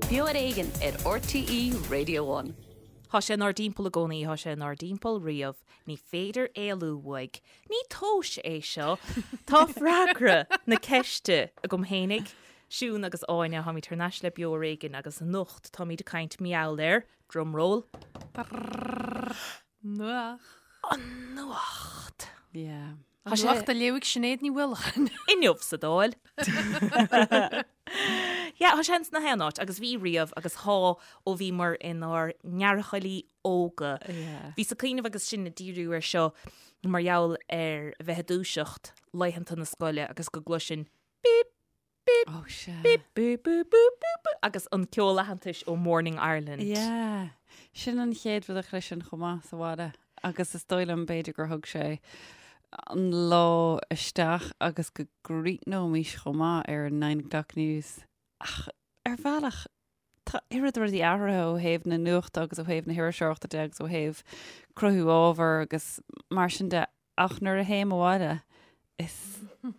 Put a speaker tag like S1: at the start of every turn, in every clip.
S1: Beo ar Éigean ar RTÉ Radio One.
S2: Tá sé inár dtimpeall i gcónaí, tá sé inár dtimpeall riamh, ní féidir éalú uaidh. Ní tomhas é seo. Tá freagra na ceiste agam fhéinig. Siún agus Áine, táimid thar n-ais le Beo ar Éigean agus anocht táimid ag caint mar gheall ar, drumroll,
S3: Nuacht.
S2: An nuacht.
S4: Yeah.
S3: An nuacht á léamh ag Sinéad Ní Mhaoileáin.
S2: Inniu sa Dáil. Yeah, tá sé ins na haon áit agus bhí riamh agus tá ó bhíomar inár ngearrchailí óga.
S4: Yeah.
S2: Bhíos ag cuimhneamh agus sinn ag díriú ar seo mar gheall ar bheith ag dúiseacht laethanta na scoile agus go gcloisfinn bíp, bíp,
S4: Oh, sea.
S2: bíp, bíp, bíp, bíp, bíp, bíp, agus an ceol aitheantais ó Morning Ireland.
S4: Yeah. Sin an chéad rud a chloisfinn chomh maith sa bhaile agus is dóigh liom b'fhéidir gur thug sé an lá isteach agus go gcríochnóimis chomh maith ar an Nine O'Clock News. Ach ar bhealach tá oiread rudaí athraithe ó thaobh na nuachta agus ó thaobh na hiriseoireachta de agus ó thaobh cruthú ábhair agus mar sin de Ach nuair a théim abhaile, is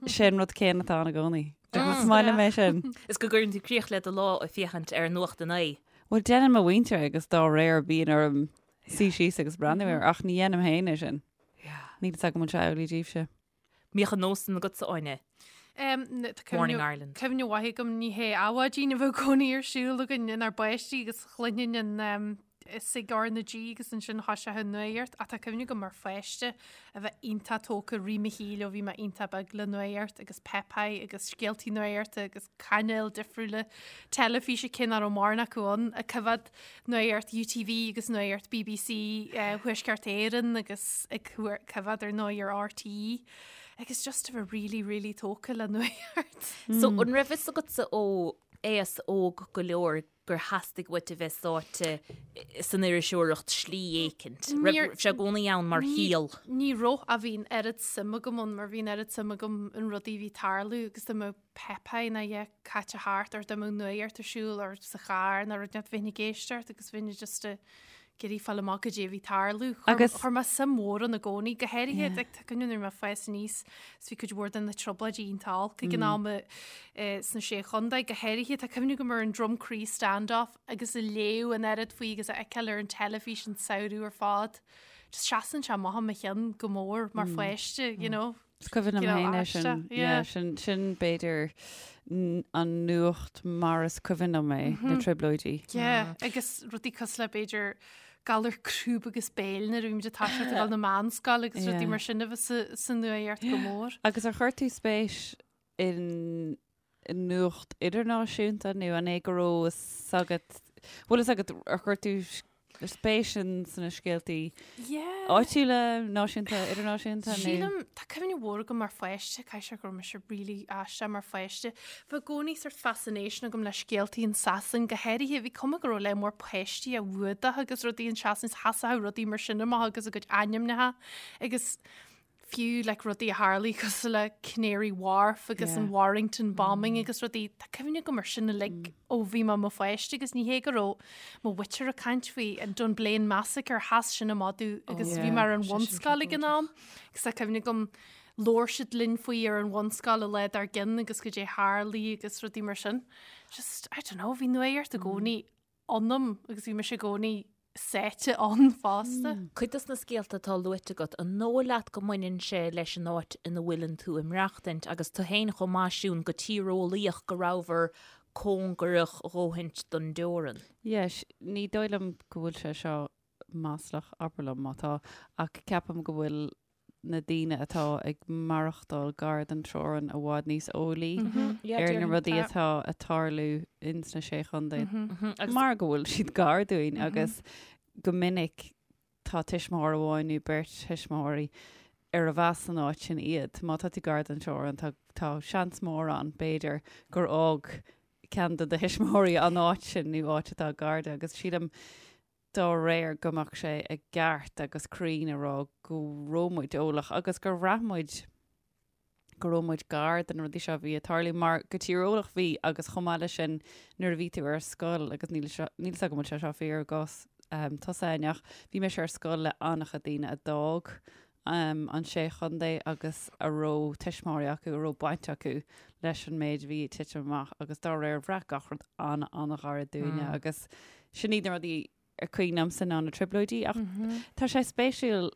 S4: sé an rud céanna atá ann i gcónaí. Is maith liom é sin.
S2: Is go gcuireann tú críoch le do lá ag féachaint ar Nuacht a Naoi.
S4: Bhuel, déanann mo mhuintir é agus dá réir bíonn orm suí síos agus breathnú air, ach ní dhéanaim féin é sin. Níl fhios agam an bhfuil sé amhlaidh daoibhse.
S2: Mbíodh an nós sin agatsa, Áine? Morning Ireland.
S3: Cuimhne mhaith agam ní hé Adhmhaidin a bheadh i gcónaí ar siúl againn inár bpáistí agus chluinfinn an sig R na G agus ansin thoiseodh an nuacht ach tá cuimhne agam mar pháiste a bheith iontach tógtha i rith mo shaoil ó bhí mé iontach beag le nuacht agus Popeye agus scéaltaí nuachta agus cainéil difriúla teilifíse cé nach raibh mórán acu ann ag coimhéad nuacht UTV agus nuacht BBC Thuaisceart Éireann agus ag coimhéad ar ndóigh ar RTÉ agus just a bheith really really tógtha le nuacht.
S2: So an raibh fhios agatsa ó aos óg go leor gur theastaigh uait a bheith sáite san iriseoireacht slí éicint? Raibh sé i gcónaí ann mar shaol?
S3: Ní raibh ach bhí an oiread suim agam ann mar bhí an oiread suim agam in rudaí a bhí ag tarlú agus dá mbeadh Popeye nó a dhath caite thart or dá mbeadh nuacht ar siúl or sa charr nó rud inteacht bheinn ag éisteacht agus bheinn just ag iarraidh fáil amach goidé a bhí ag tarlú.
S4: Agus-
S3: Chuir mé suim mhór ann i gcónaí, go háirithe like, tá cuimhne nuair a bhí mé ag fás aníos is bhí cuid mhór de na trioblóidí iontach olc ag an am eh, sna Sé Chontae, go háirithe tá cuimhne agam ar an Drumcree standoff agus ag léamh an oiread faoi agus a fheiceáil ar an teilifís an samhradh ar fad. Just seasann sé amach i mo cheann go mór mar pháiste, you know.
S4: Is cuimhin liom féin é sin. Yeah, sin, sin b'fhéidir an nuacht mar is cuimhin liom é, na trioblóidí.
S3: Yeah, agus rudaí cosúil le b'fhéidir galar crúb agus béil nuair a bhí muid ag toiseacht ag dul na meánscoile agus rudaí mar sin a bheith sa nuacht go mór.
S4: Agus ar chuir tú spéis in nuacht idirnáisiúnta nó an é go raibh fhios agat, bhfuil fhios agat ar chuir tú spéis in sna scéaltaí áitiúla, náisiúnta, idirnáisiúnta
S3: nó? Sílim, tá cuimhne mhór agam mar pháiste, caithfidh sé go raibh mise really aisteach mar pháiste. Bhí i gcónaí sort fascination agam le scéaltaí in Sasain, go háirithe bhí cuma go raibh lear mór páistí á bhfuadach agus rudaí in Sasain, sheasfadh rudaí mar sin amach agus a gcuid ainmneacha agus fiú like rudaí a tharlaigh cosúil le Canary Wharf agus an Warrington bombing agus rudaí, tá cuimhne agam ar sin uilig ó bhí mé i mo pháiste agus ní hé go raibh mo mhuintir ag caint faoi an Dunblane Massacre, sheas sin amach domh agus bhí mé ar an bhunscoil ag an am agus tá cuimhne agam labhair siad linn faoi ar an bhunscoil an lá dár gcionn agus goidé a tharlaigh agus rudaí mar sin. Just, I don't know, bhí nuacht i gcónaí ionam agus bhí mise i gcónaí sáite ann fosta.
S2: Cuid dos na scéalta atá luaite agat, an dóigh leat go mbaineann sé leis an áit ina bhfuileann tú ag maireachtaint agus tú féin chomh maith Siún, go tíreolaíoch go rabhabhair cóngarach a dhóthaint don dteorann?
S4: Yes, ní dóigh liom go bhfuil sé seo maslach, abair liom má tá, ach ceapaim go bhfuil na daoine atá ag maireachtáil gar don teorainn i bhfad níos eolaí ar na rudaí atá ag tarlú ins na Sé Chontae mar go bhfuil siad gar dúinn agus go minic tá tuismitheoir amháin nó beirt thuismitheoirí arbh as an áit sin iad. Má tá tú gar don teorainn tá tá seans mór ann b'fhéidir gur fhág ceann de do thuismitheoirí an áit sin nó áit atá gar di agus sílim dá réir go mbeadh sé i gceart agus cruinn a rá go raibh muid eolach agus gur bhraith muid go raibh muid gar do na rudaí seo a bhí ag tarlú mar go tíreolach bhí agus chomh maith leis sin nuair a bhí tú ar scoil agus níl seo níl 's agam an bhfuil sé seo fíor i gcás um, tusa Áine ach bhí mise ar scoil le an-chuid daoine a d'fhág. an Sé Chontae agus a raibh tuismitheoirí acu, a raibh baint acu leis an méid a bhí ag titim amach agus dá réir bhraith gach rud an-an-ghairid dúinne agus sin iad na rudaí ar cuimhin liomsa ná na trioblóidí ach tá sé spéisiúil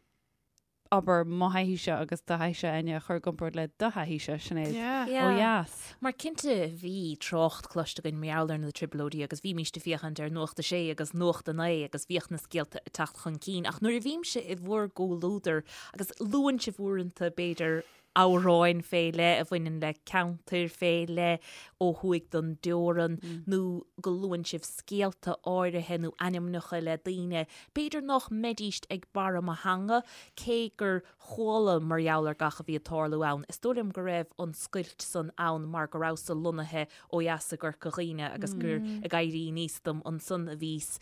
S4: abair mo thaithíse agus do thaithíse Áine a chur i gcomparáid le do thaithíse, Sinéad, ó dheas.
S2: Mar cinnte bhí trácht cloiste againn mar gheall ar na trioblóidí agus bhímíst ag féachaint ar Nuacht a Sé agus Nuacht a Naoi agus bhíodh na scéalta ag teacht chun cinn ach nuair a bhímse i bhur gcomhluadar agus luann sibh uaireanta b'fhéidir amhráin fé leith a bhaineann le ceantair fé leith ó thuaidh den dteorann nó go luann sibh scéalta áirithe nó ainmneacha le daoine, b'fhéidir nach mbeidíst ag barra mo theanga, cé gur chuala mar gheall ar gach a bhí ag tarlú ann. Is dóigh liom go raibh an scoilt san ann mar go rabhas-sa lonnaithe ó dheas i gCorca Dhuibhne agus gur ag éirí aníos dom ansan a bhíos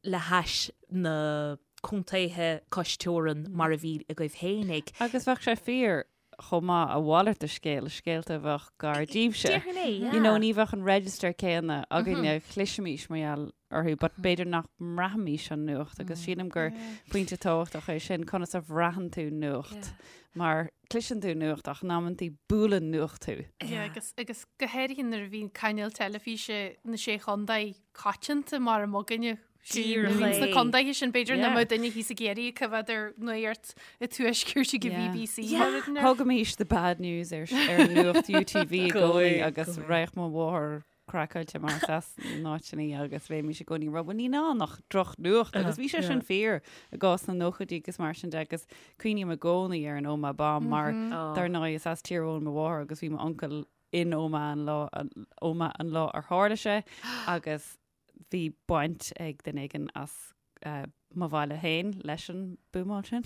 S2: le hais na contaetha cois teorann mar a bhí agaibh fhéinig.
S4: Agus bheadh sé fíor chomh maith a mhalairt de scéal, scéalta a bheadh gar díbhse.
S2: Déarfainn é, yeah.
S4: You know, ní bheadh an register céanna againne, chloisfimís mar gheall orthu, but b'fhéidir nach mbraithimís an nuacht agus sílim gur pointe tábhachtach é sin, conas a bhraitheann tú nuacht, mar cloiseann tú nuacht ach in amantaí buaileann nuacht thú.
S3: Yeah, agus, agus go háirithe nuair a bhíonn cainéal teilifíse na Sé Chontae coitianta mar a mb'againne.
S2: Díreach é.
S3: Sna contaetha sin b'fhéidir nach
S4: Yeah.
S3: mbeadh duine thíos i gCiarraí ag coimhéad ar nuacht an tuaiscirt ag an
S4: Yeah.
S3: BBC.
S2: Yeah.
S3: mar rud ar.
S4: Thugaimis the bad news ar, ar nuacht UTV i gcónaí agus raghadh mo mháthair craiceáilte mar is as an áit sin í agus bheimis i gcónaí ag rá, "Bhuel, níl ann ach drochnuacht agus bhí sé sin fíor i gcás na nóchaidí agus mar sin de agus cuimhním i gcónaí ar an Omagh bomb mar dar ndóigh is as Tír Eoghain mo mháthair agus bhí m'uncail in Omagh an lá, Omagh an lá ar tharla sé agus bhí baint ag duine éigin as mo bhaile féin leis an buamáil sin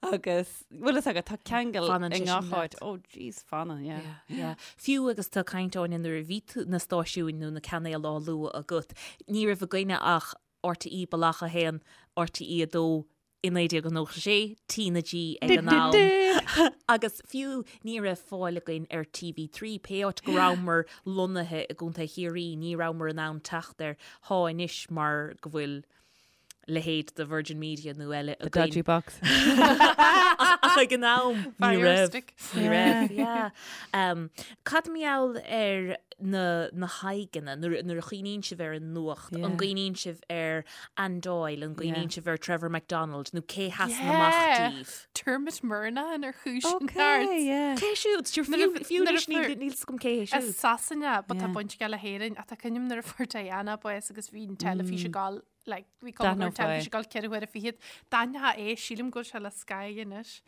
S4: agus bhfuil fhios agat tá ceangal
S2: Fanann
S4: i
S2: sé sin
S4: ngach
S2: leat.
S4: áit. Oh jeez, fanann, yeah.
S2: Yeah, yeah. Fiú agus tú ag caint Áine nuair a bhí tú na stáisiúin nó na cainéil á lua agat, ní raibh againne ach RTÉ Bealach 1, RTÉ 2, i 1996, T na G ag an am. Agus fiú ní raibh fáil againn ar TV3, pé áit go rabhamar lonnaithe i gContae Chiarraí, ní rabhamar in ann teacht air. Thá anois mar go bhfuil leithéid de Virgin Media nó eile
S4: The
S2: againn.
S4: dodgy box.
S2: Ach ag an am, ní
S3: Fire
S2: raibh.
S3: stick.
S2: Ní raibh, yeah. Um, cad mar gheall ar na, na haghaidheanna, nuair, nuair a chuimhníonn sibh ar an nuacht,
S4: Yeah.
S2: an gcuimhníonn sibh ar Anne Doyle, an gcuimhníonn
S4: Yeah.
S2: sibh ar Trevor McDonald, nó cé sheasann amach
S3: Yeah.
S2: díbh?
S3: Dermot Murnaghan ar chúis an
S4: Okay,
S3: neart.
S4: yeah.
S2: Cé siúd? Sure,
S3: Nuair a
S2: Fiú fiú
S3: nuair a
S2: anois níl
S3: fuair-
S2: níl fhios agam cé hé
S3: As
S2: siúd.
S3: Sasana, but tá
S4: Yeah.
S3: baint aige le hÉirinn, ach tá cuimhne agam nuair a fuair Diana bás agus bhí an teilifís ag gabháil like, bhí cuma go raibh
S4: D'aithneofá é.
S3: teilifís ag gabháil 24 huaire. D'aithneofá é, sílim go bhfuil sé le Sky anois.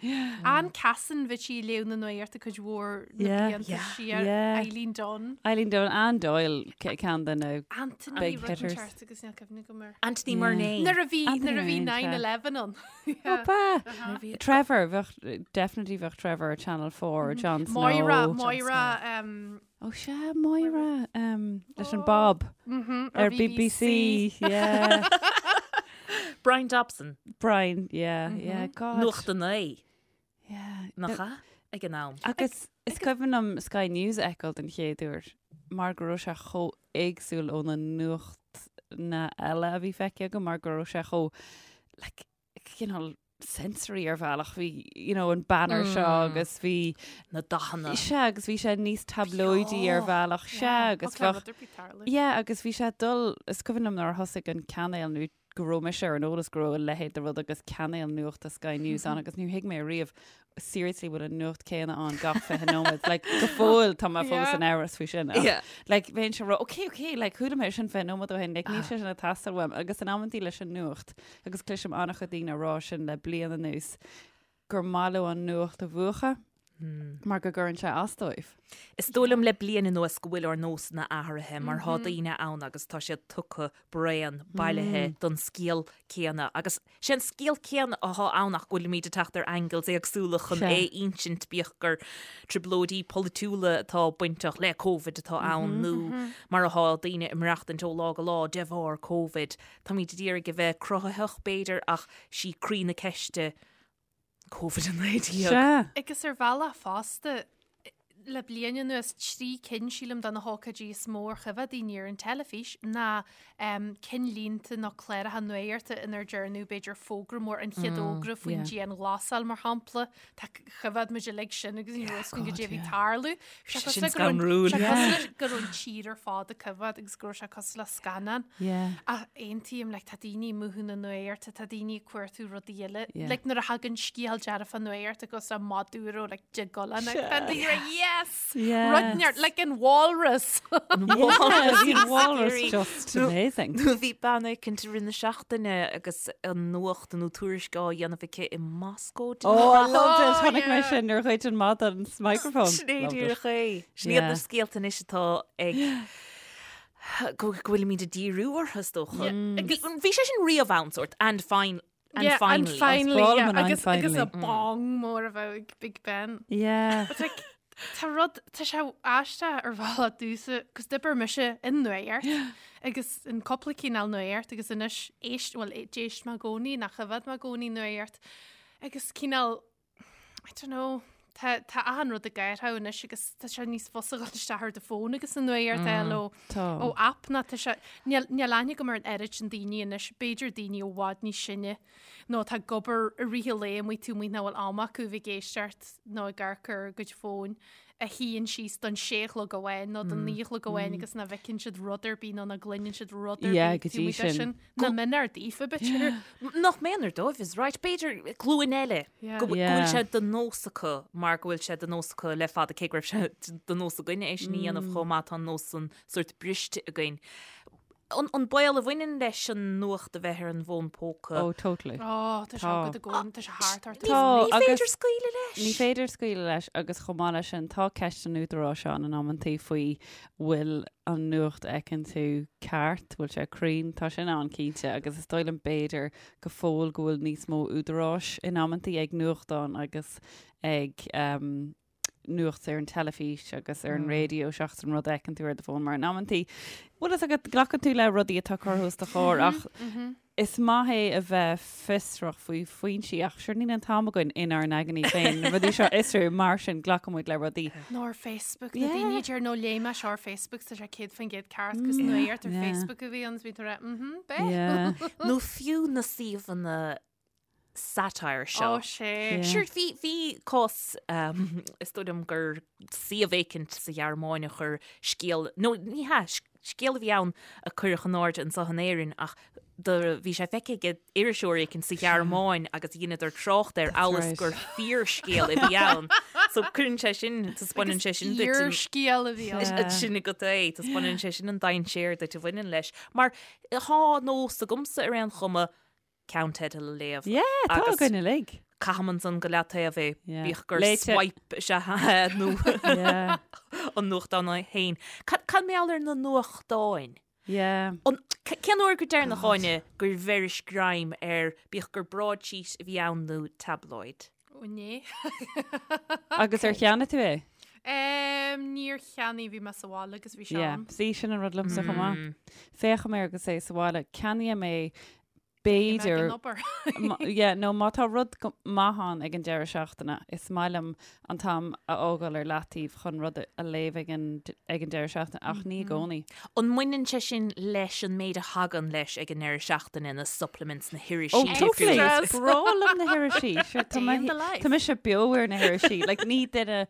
S3: Anne Cassin bhí sí ag léamh na nuachta cuid mhór na
S4: Yeah.
S3: blianta
S2: Yeah.
S3: siar.
S4: Yeah.
S3: Eileen Dunne.
S4: Eileen Dunne, Anne Doyle ce- ceann de na
S3: Anthony
S4: Big
S3: rud
S4: hitters.
S3: inteacht agus níl cuimhne agam air.
S2: Anthony
S4: Yeah.
S2: Murnane.
S3: Nuair a bhí
S4: Anthony
S3: nuair a bhí
S4: Murnane, sea.
S3: 9/11 ann.
S4: Opa!
S2: Nuair a bhí-
S4: Trevor, bheadh, definitely bheadh Trevor ar Channel 4, Jon Snow.
S3: Moira, Moira, um,
S4: Ó sea, Moira, um, leis an Bob
S3: mhm,
S4: ar BBC. Yeah.
S2: Bryan Dobson,
S4: Bryan, yeah, yeah, God.
S2: Nuacht a Naoi,
S4: Yeah.
S2: nach ea? Ag an am.
S4: Agus is cuimhin liom Sky News a fheiceáil den chéad uair mar go raibh sé chomh éagsúil ó na nuachtanna eile a bhí feicthe agam mar go raibh sé chomh like, cineál sensory ar bhealach bhí you know, an banner seo agus bhí
S2: Na dathanna.
S4: Sea agus bhí sé níos tablóidí ar bhealach sea agus bheadh Yeah, agus bhí sé dul is cuimhin liom nuair a thosaigh an cainéal nó go raibh mise ar an eolas go raibh a leithéid de rud agus cainéal nuachta Sky News ann agus níor thuig mé riamh seriously bhfuil an nuacht céanna ann gach 20 nóiméad. Like, go fóill tá mé fós
S3: Yeah.
S4: in amhras faoi sin. Ach,
S2: Yeah.
S4: Like, bheinnse ag rá, okay, okay, like, chuala mé sin 20 nóiméad ó shin, like, níl sé sin ag teastáil uaim. Agus in amantaí leis an nuacht, agus cloisim an-chuid daoine ag rá sin le bliain anuas, gur maith leo an nuacht a mhúchadh mar go gcuireann sé as dóibh.
S2: Is dóigh liom le bliain anuas go bhfuil ár nósanna athraithe mar thá daoine ann agus tá siad tugtha bréan bailithe don scéal céanna agus sé an scéal céanna athá ann ach go bhfuilimid ag teacht ar angles éagsúla chun
S4: Sea.
S2: é a insint bíodh gur trioblóidí polaitiúla atá bainteach le Covid atá ann nó mar athá daoine ag maireachtaint ó lá go lá de bharr Covid. Táimid ag iarraidh a bheith cruthaitheach b'fhéidir ach sí croí na ceiste Covid-19.
S4: Sea.
S3: Agus ar bhealach fosta, le bliain anuas, 3 cinn, sílim, de na hócáidí is mó ar choimhéad daoine ar an teilifís ná cinnlínte nó cláracha nuachta inar dearnadh b'fhéidir fógra mór, an chéad fhógra faoin dianghlasáil mar shampla. Tá choimhéad muid uilig sin agus ní raibh a fhios againn goidé a bhí ag tarlú. Bhí sé
S2: Sin
S3: cosúil le go raibh an-
S2: scanrúil.
S3: sé cosúil le go raibh an tír ar fad ag coimhéad agus go raibh sé cosúil le scannán.
S4: Yeah.
S3: Ach aontaím, like, tá daoine ag múchadh na nuachta, tá daoine ag cuartú rudaí eile.
S4: Yeah.
S3: Like, nuair a thagann scéal dearfach nuachta cosúil le Maduro, like, de Golan, like, tá daoine like, yes!
S4: Yes.
S3: Rud neart, like an walrus.
S4: Yeah, the walrus just amazing.
S2: Nó bhí bean éicint i rith na seachtaine agus an nuacht nó tuairisc á dhéanamh aici i Moscó.
S4: Oh, I loved it.
S3: Oh,
S4: Chonaic mé
S3: yeah.
S4: sin nuair a ghoid an madadh an microphone.
S2: Sin é
S4: Loved it.
S2: díreach é. Sin iad
S4: Yeah.
S2: na scéalta anois atá ag go go bhfuilimid ag díriú orthu is dócha.
S3: Yeah.
S2: Bhí bhí sé sin riamh ann sórt and fine and
S3: Yeah,
S2: finally.
S3: and finally,
S4: Is breá liom
S3: yeah,
S4: an and
S3: agus, agus a
S4: finally.
S3: bong mór a bheadh ag Big Ben.
S4: Yeah.
S3: But like, tá rud, tá sé aisteach ar bhealach domhsa, cos d'oibir mise in nuacht agus in cúpla cineál nuacht agus anois éist, well, d'éist mé i gcónaí, nach choimhéad mé i gcónaí nuacht agus cineál, I don't know, tá, tá achan rud ag athrú anois agus tá sé níos fusa dhul isteach ar do fón agus an nuacht a fháil ó,
S4: Tá.
S3: ó app ná tá sé, níl, níl aithne agam ar an oiread sin daoine anois, b'fhéidir daoine i bhfad níos sine nó atá ag obair i rith an lae amuigh taobh amuigh nach bhfuil am acu bheith ag éisteacht nó ag amharc ar a gcuid fóin a shuíonn síos don sé a chlog amháin nó don naoi a chlog amháin agus nach bhfeiceann siad rud ar bith nó nach gcluineann siad rud ar
S4: Yeah,
S3: bith
S4: go
S3: taobh
S4: dtí
S3: amuigh de
S4: sin.
S3: sin. Nach méanar daofa, b'fhéidir.
S2: Nach méanar dóibh is right. B'fhéidir glúin eile
S3: Yeah.
S2: go go
S4: Yeah.
S2: bhfuil sé de nós acu mar go bhfuil sé de nós acu le fada cé go raibh sé de nós againne é sin a dhéanamh chomh maith tá an nós san sórt briste againn. An an baol a bhaineann leis an nuacht a bheith ar an bhfón póca.
S4: Oh, totally.
S3: Ó, tá sé
S4: Tá.
S3: agat i gcónaí, tá sé thart ort.
S2: Ní
S4: Tá,
S2: ní féidir
S4: agus-
S2: scaoileadh leis.
S4: Ní féidir scaoileadh leis agus chomh maith leis sin tá ceist an údaráis ann in amantaí faoi bhfuil an nuacht a fheiceann tú ceart, bhfuil sé cruinn, tá sin ann cinnte agus is dóigh liom b'fhéidir go fóill go bhfuil níos mó údaráis in amantaí ag nuachtáin agus ag um, nuacht ar an teilifís agus ar an raidió seachas an rud a fheiceann tú ar do fón mar in amantaí bhfuil fhios agat glacann tú le rudaí atá curtha os do chomhair ach is maith é a bheith fiosrach faoi foinsí ach sure níl an t-am againn inár n-aigne féin na rudaí seo a fhiosrú mar sin glacann muid le rudaí.
S3: Nó ar Facebook, na
S4: Yeah.
S3: daoine a deir nó léigh mé seo ar Facebook tá sé 100% ceart cos nuacht ar
S4: Yeah.
S3: Facebook a bhí ann is bhí tú ag rá mhm beidh.
S4: Yeah.
S2: Nó fiú na suíomhanna satire seo.
S3: Ó sé.
S4: Yeah.
S2: Sure, bhí, bhí cás, um, is dóigh liom gur suíomh éicint sa Ghearmáin a chuir scéal, nó ní hea, scéal a bhí ann a cuireadh in airde anseo in Éirinn ach do bhí sé feicthe ag iriseoir éicint sa Ghearmáin agus dheineadar trácht air amhail is
S4: right.
S2: gur fíorscéal a bhí ann. So cuireann sé sin, taispeánann sé sin duit an-
S3: Fíorscéal a bhí ann.
S4: Yeah.
S2: sin agat é, taispeánann sé sin an dainséar duit a bhaineann leis. Mar tá nós agamsa ar aon chuma ceannteideal a léamh.
S4: Yeah, tá
S2: Agus-
S4: againn uilig.
S2: Caithim ansan go leataobh é,
S4: Yeah.
S2: bíodh gur
S4: Léite.
S2: swipe is ea é nó
S4: Yeah.
S2: an nuachtán é féin. Cad cad mar gheall ar na nuachtáin?
S4: Yeah.
S2: An, c- cén uair go deireanach Áine gur bheiris greim ar bíodh gur broadsheet a bhí ann nó tabloid?
S3: Ó inné.
S4: Agus ar cheannaigh tú é?
S3: Um, níor cheannaigh bhí mé sa bhaile agus bhí sé
S4: Yeah.
S3: ann.
S4: Sí sin an rud liomsa chomh maith. Féachaim air agus é sa bhaile. Ceannaím é b'fhéidir yeah, nó má tá rud maith ann ag an deireadh seachtaine, is maith liom an t-am a fhágáil ar leataobh chun rud a léamh ag an, ag an deireadh seachtaine, ach ní i gcónaí.
S2: An mbaineann sé sin leis an méid a thagann leis ag an ndeireadh seachtaine, na supplements, na hirisí
S4: Oh, totally.
S2: difriúla?
S4: Is breá liom na hirisí. Sure, tá
S3: Day
S4: mé-
S3: in the life.
S4: Tá mise beo ar na hirisí. Like, ní duine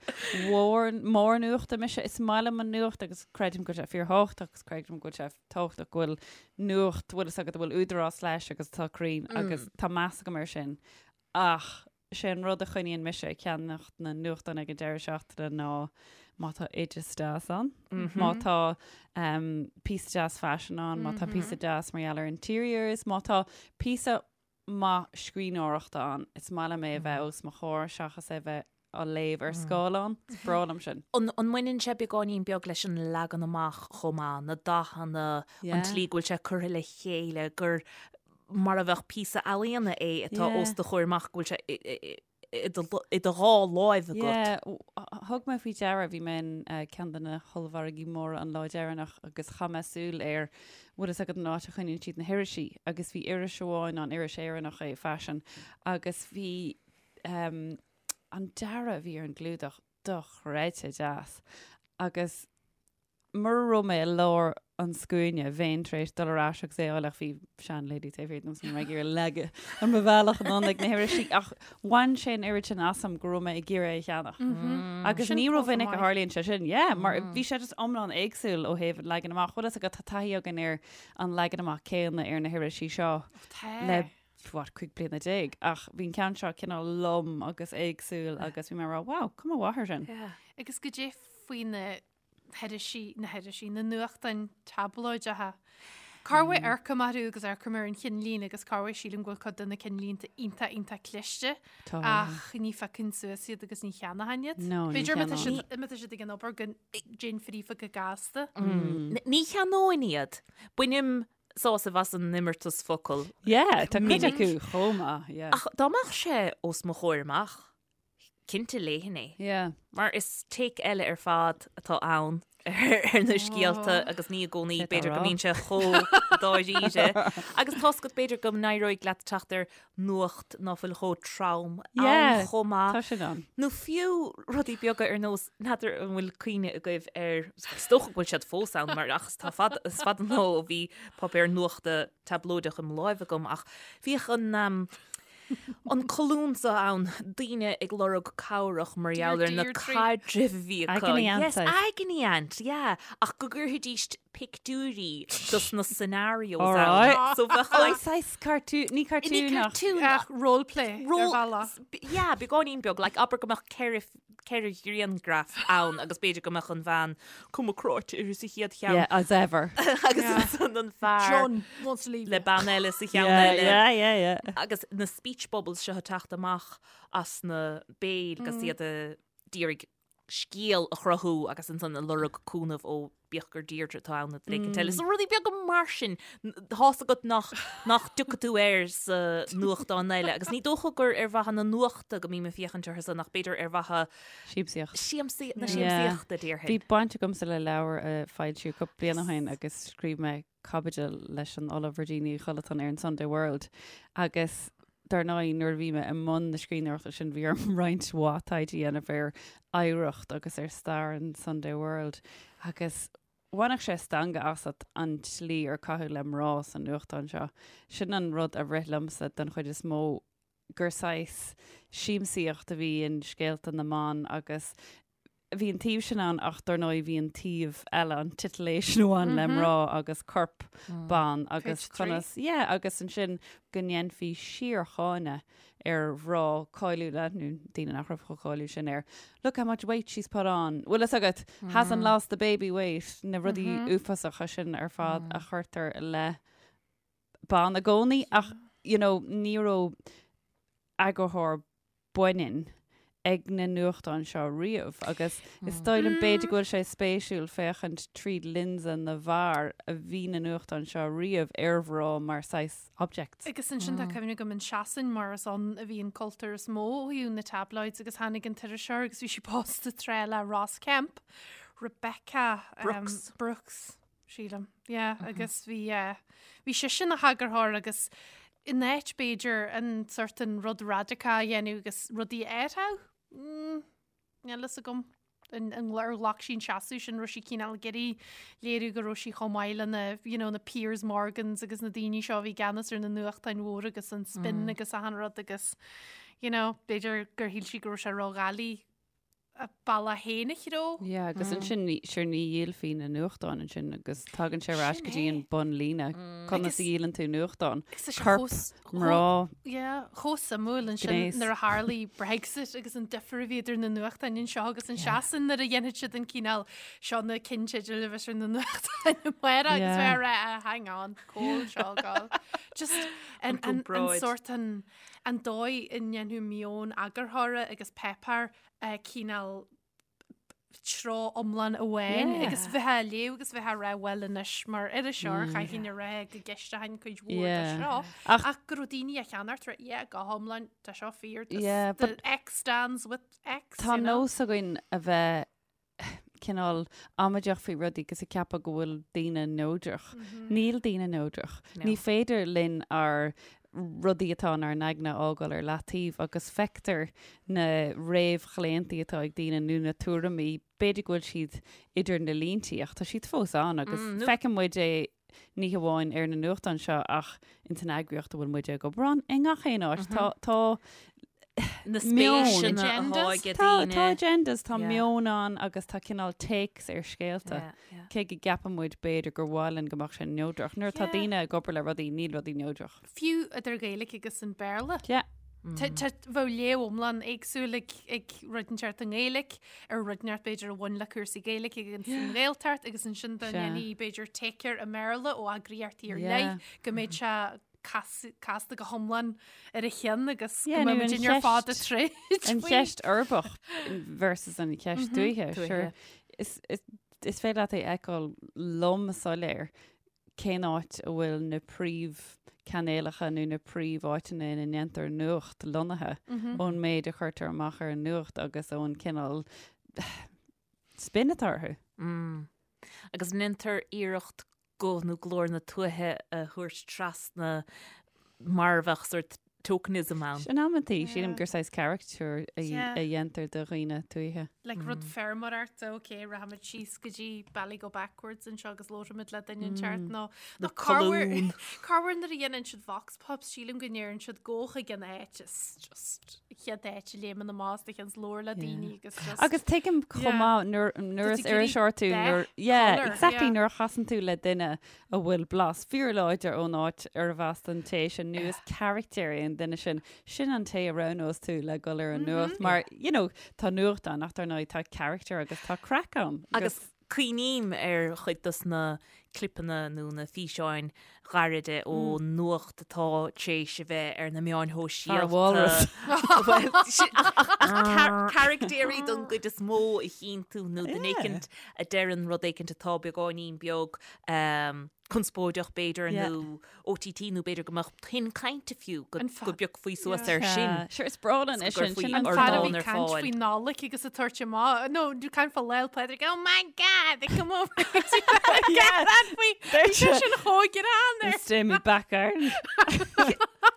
S4: mhór, mór nuachta mise. Is maith liom an nuacht agus creidim go bhfuil sé fíorthábhachtach agus creidim go bhfuil sé tábhachtach go bhfuil nuacht, bhfuil fhios agat a bhfuil údarás leis agus atá cruinn agus tá meas agam air sin. Ach sé an rud a choinníonn mise ag ceannacht na nuachtán ag an deireadh seachtaine ná má tá oideas deas ann, má tá um, píosa deas faisin ann, má tá píosa deas mar gheall ar interiors, má tá píosa maith scríbhneoireachta ann, is maith liom é a bheith os mo chomhair seachas é a bheith á léamh ar scáileán. Is breá liom sin.
S2: An an mbaineann sé beagáinín beag leis an leagan amach chomh maith, na dathanna, an
S4: Yeah.
S2: tslí go bhfuil sé curtha le chéile, gur mar a bheadh píosa ealaíona é atá
S4: Yeah.
S2: os do chomhair amach, go bhfuil sé i- i- i- i do i do dhá láimh agat.
S4: Yeah, w- thug mé faoi deara, bhí mé in eh, ceann de na hollmhargaí móra an lá deireanach agus chaith mé súil ar bhfuil fhios agat an áit a choinníonn siad na hirisí agus bhí iris amháin ann, iris Éireannach é, Fashion, agus bhí um, an dearadh a bhí ar an gclúdach. dochreidte deas agus mura raibh mé i lár an scuaine, bheinn tar éis dul ar ais agus é a fháil ach bhí seanlady taobh thiar díom is ní raibh mé ag iarraidh leagadh ar mo bhealach anonn ag na hirisí ach bhain sé an oiread sin asam go raibh mé ag iarraidh é a cheannach. Agus
S3: Sin
S4: ní
S3: rómhinic
S4: rómhinic a tharlaíonn sé sin, yeah, mar bhí sé just iomlán éagsúil ó thaobh an leagan amach. Bhfuil fhios agat, tá taithí againn ar an leagan amach céanna ar na hirisí seo le what, 15 bliana ach bhí an ceann seo cineál lom agus éagsúil agus bhí mé ag rá, wow, cuma mhaith air sin.
S3: Agus goidé faoi na hirisí, na hirisí, na nuachtáin tablóideacha. Corruair amharcaim orthu agus amharcaim ar an chinnlín agus corruair sílim go bhfuil cuid de na cinnlínte iontach iontach cliste
S4: Tá.
S3: ach ní phiocfainn suas iad agus ní cheannóchainn iad.
S4: No, ní
S3: B'fhéidir má tá
S4: cheannóinn.
S3: siad má tá siad ag an obair go dtéinn fríofa go gasta.
S2: Ní cheannóinn iad. Bainim sásamh as an imeartas focal.
S4: Yeah, tá cuid
S2: Minic.
S4: acu chomh maith, yeah.
S2: Ach dá mbeadh sé os mo chomhair amach, cinnte léifinn é.
S4: Yeah.
S2: Mar is take eile ar fad atá ann ar na scéalta agus ní i gcónaí
S4: Cé tá
S2: b'fhéidir go
S4: rá?
S2: mbíonn sé chomh dáiríre. Agus tá's agat b'fhéidir go n-éireoidh leat teacht ar nuacht ná fuil chomh trom ann
S4: Yeah,
S2: chomh maith.
S4: Tá sin ann.
S2: Nó fiú rudaí beaga ar nós, n'fheadar an bhfuil cuimhne agaibh ar, is dócha go bhfuil siad fós ann mar ach is tá fada, is fada an lá ó bhí páipéar nuachta tablóideach i mo láimh agam ach bhíodh an um, An colún seo ann, daoine ag lorg cabhrach mar gheall ar na
S3: Deirdre.
S2: caidrimh a bhí acu.
S4: Agony Aunt
S2: Yes,
S4: saghas.
S2: Agony Aunt, yeah. Ach go gcuirfidís pictiúirí dos na scenarios
S4: All
S2: ann.
S4: right.
S2: So bheadh
S4: Oh,
S2: like,
S4: saghas cartoon, ní
S2: ní
S4: cartoon ach.
S2: cartoon,
S3: Ach roleplay ar
S2: Role-
S3: bhealach.
S2: yeah, beagáinín beag, like abair go mbeadh 4 ghrianghraf ann agus b'fhéidir go mbeadh an bhean cuma cráite uirthi sa chéad cheann.
S4: Yeah, as ever.
S2: Agus
S3: Yeah.
S2: ansan an fear
S3: John wants to leave
S2: le bean eile sa cheann
S4: Yeah,
S2: eile.
S4: yeah, yeah, yeah.
S2: Agus na speech bubbles seo ag teacht amach as na béil agus iad ag iarraidh scéal a chruthú agus ansan ag lorg cúnamh ó bíodh gur Deirdre atá ann nó duine éicint eile. So rudaí beaga mar sin, tá's agat nach nach dtiocfaidh tú air sa nuachtán eile. Agus ní dócha gur ar mhaithe na nuachta go mbím ag féachaint orthu san ach b'fhéidir ar mhaithe
S4: Siamsaíocht.
S2: siamsaí, na
S4: Yeah.
S2: siamsaíochta, déarfainn.
S4: Bhí baint agamsa le leabhar a foilsíodh cúpla bliain ó shin agus scríobh mé caibidil leis an Ollamh Virginia Uí Chollatáin ar an Sunday World agus Dar ndóigh, nuair a bhí mé i mbun na scríbhneoireachta sin, bhí orm roinnt mhaith taighde a dhéanamh ar oidhreacht agus ar stair an Sunday World agus bhainfeadh sé stangadh asat an tslí ar caitheadh le mná sa nuachtán seo. Sin an rud a rith liomsa den chuid is mó, gur saghas siamsaíocht a bhí in scéalta na mban agus bhí an taobh sin ann ach dar ndóigh bhí an taobh eile, an titillation a bhain le mná agus corp ban agus conas, yeah, agus ansin go ndéanfaí síorcháineadh ar mhná cáiliúla, nó daoine nach raibh chomh cáiliúil sin ar look how much weight she's put on, bhfuil fhios agat, hasn't lost the baby weight, na rudaí uafásacha sin ar fad a chuirtear i leith ban i gcónaí ach, you know, ní raibh eagarthóir baineann ag na nuachtáin seo riamh agus is dóigh liom b'fhéidir go bhfuil sé spéisiúil féachaint tríd lionsa na bhfear a bhí na nuachtáin seo riamh ar mhná mar saghas objects.
S3: Agus ansin tá cuimhne agam in Sasain mar is ann a bhí an cultúr is mó ó thaobh na tabloids agus tháinig an t-iriseoir agus bhí sí pósta tráth le Ross Kemp, Rebecca
S2: Brooks.
S3: Brooks. sílim. Yeah, agus bhí eh, bhí sise ina heagarthóir agus in áit b'fhéidir an sort an rud radacach a dhéanamh agus rudaí a athrú, mm, níl fhios agam an, an, ar ghlac sí an seasamh sin raibh sí cineál ag iarraidh léiriú go raibh sí chomh maith le na, you know, na Piers Morgans agus na daoine seo a bhí i gceannas ar na nuachtáin mhóra agus an spin agus achan rud agus, you know, b'fhéidir gur shíl sí go raibh sé ródhoiligh a bealach féin a threabhadh.
S4: Yeah, agus ansin ní, sure ní dhíolfaí na nuachtáin ansin agus tagann sé ar ais go dtí an bunlíne. Conas a dhíolann tú nuachtán?
S3: Agus tá sé
S4: Corp,
S3: chomh-
S4: mná,
S3: Yeah, chomh suimiúil ansin
S4: Gnéas.
S3: nuair a tharlaigh Brexit agus an difear a bhí idir na nuachtáin anseo agus in Sasain nuair a dhéanfaidh siad an cineál seo na ceannteidil a bheas ar na nuachtáin amárach agus
S4: Yeah.
S3: bheith ag rá, "Ah, hang on, cá bhfuil seo ag gabháil. Just an, an, an
S2: gcomparáid.
S3: sort an, an dóigh a ndéanfadh meon eagarthóra agus páipéar cineál treo iomlán amháin
S4: Yeah.
S3: agus bheith á léamh agus bheith á rá bhuel anois mar iriseoir chaithfinn a rá go gceisteochainn cuid mhór de
S4: Yeah.
S3: seo
S4: Ach-
S3: ach go raibh daoine á cheannacht rá yeah go hiomlán tá seo fíor this-
S4: Yeah,
S3: the
S4: but-
S3: X stands with X
S4: Tá
S3: you know?
S4: nós againn a bheith cineál amaideach faoi rudaí agus ag ceapadh go bhfuil daoine neodrach. Níl daoine neodrach. Ní féidir linn ár. rudaí atá inár n-aigne a fhágáil ar leataobh agus feictear na réamhchlaontaí atá ag daoine nó na tuairimí, b'fhéidir go bhfuil siad idir na líntí ach tá siad fós ann agus feiceann muid é ní hamháin ar na nuachtáin seo ach ins an eagraíocht a bhfuil muid ag obair ann, i ngach aon áit. Tá, tá
S2: Na spéiseanna atá ag daoine.
S4: Tá agendas, tá meon ann agus tá cineál takes ar scéalta. Cé go gceapann muid b'fhéidir gur mhaith linn go mbeadh sé neodrach. Nuair atá daoine ag obair le rudaí, níl rudaí neodrach.
S3: Fiú idir Gaeilge agus an Béarla.
S4: Yeah.
S3: Bheadh léamh iomlán éagsúil ag rud inteacht i nGaeilge ar rud inteacht b'fhéidir a bhain le cúrsaí Gaeilge agus an Ghaeltacht agus ansin dá ndéanfaí b'fhéidir take air i mBéarla ó eagraíochtaí ar leith go mbeadh sé casta go hiomlán ar a cheann agus go mbeadh muid ar fad ag troid.
S4: An cheist uirbeach versus an cheist tuaithe. Sure. Is féidir leat é a fheiceáil lom soiléir cén áit a bhfuil na príomhchainéalacha nó na príomháiteanna ina ndéantar nuacht lonnaithe ón méid a chuirtear amach ar an nuacht agus ón cineál spin atá orthu.
S2: Agus an ndéantar iarracht guth nó glór na tuaithe a thabhairt trasna mar a bheadh sórt tokenism ann.
S4: In amantaí, sílim gur saghas caricature a dhéantar de dhaoine tuaithe.
S3: Like rud feirmeoireachta, ok, rachaimid síos go dtí Bally Go Backwards anseo agus labhróimid le duine inteacht nó nó corruair corruair nuair a dhéanann siad vox pops, sílim go ndeireann siad gabh chuig an áit is just chéad áit a léimeann amach as do cheann is labhair le daoine agus just
S4: Agus tuigim chomh maith nuair nuair is iriseoir tú nuair yeah, exactly nuair a chasann tú le duine a bhfuil blas fíorláidir ón áit arbh as don té sin nó is carachtar é an duine sin, sin an té a roghnós tú le dhul ar an nuacht mar, you know, tá nuacht ann ach dar ndóigh tá carachtar agus tá craic ann.
S2: Agus cuimhním ar chuid dos na clipeanna nó na físeáin ghairide ó nuacht atá tar éis a bheith ar na meáin
S4: Fear walrus.
S2: Bhuel, ach caractéirí don gcuid is mó a chíonn tú nó duine éicint a deireann rud éicint atá beagáinín beag conspóideach b'fhéidir nó OTT nó b'fhéidir go mbeadh tuin cainte fiú go bpiocfaí suas air sin.
S4: Sure, is breá linn é sin.
S3: Sin an fear a bhí ag caint faoi Nollaig agus ag tabhairt amach, no, caint fá Lá 'le Pádraig, oh my God, they come over yeah. faoi, bhí sé sin chomh greannmhar.
S4: Stay me back garden.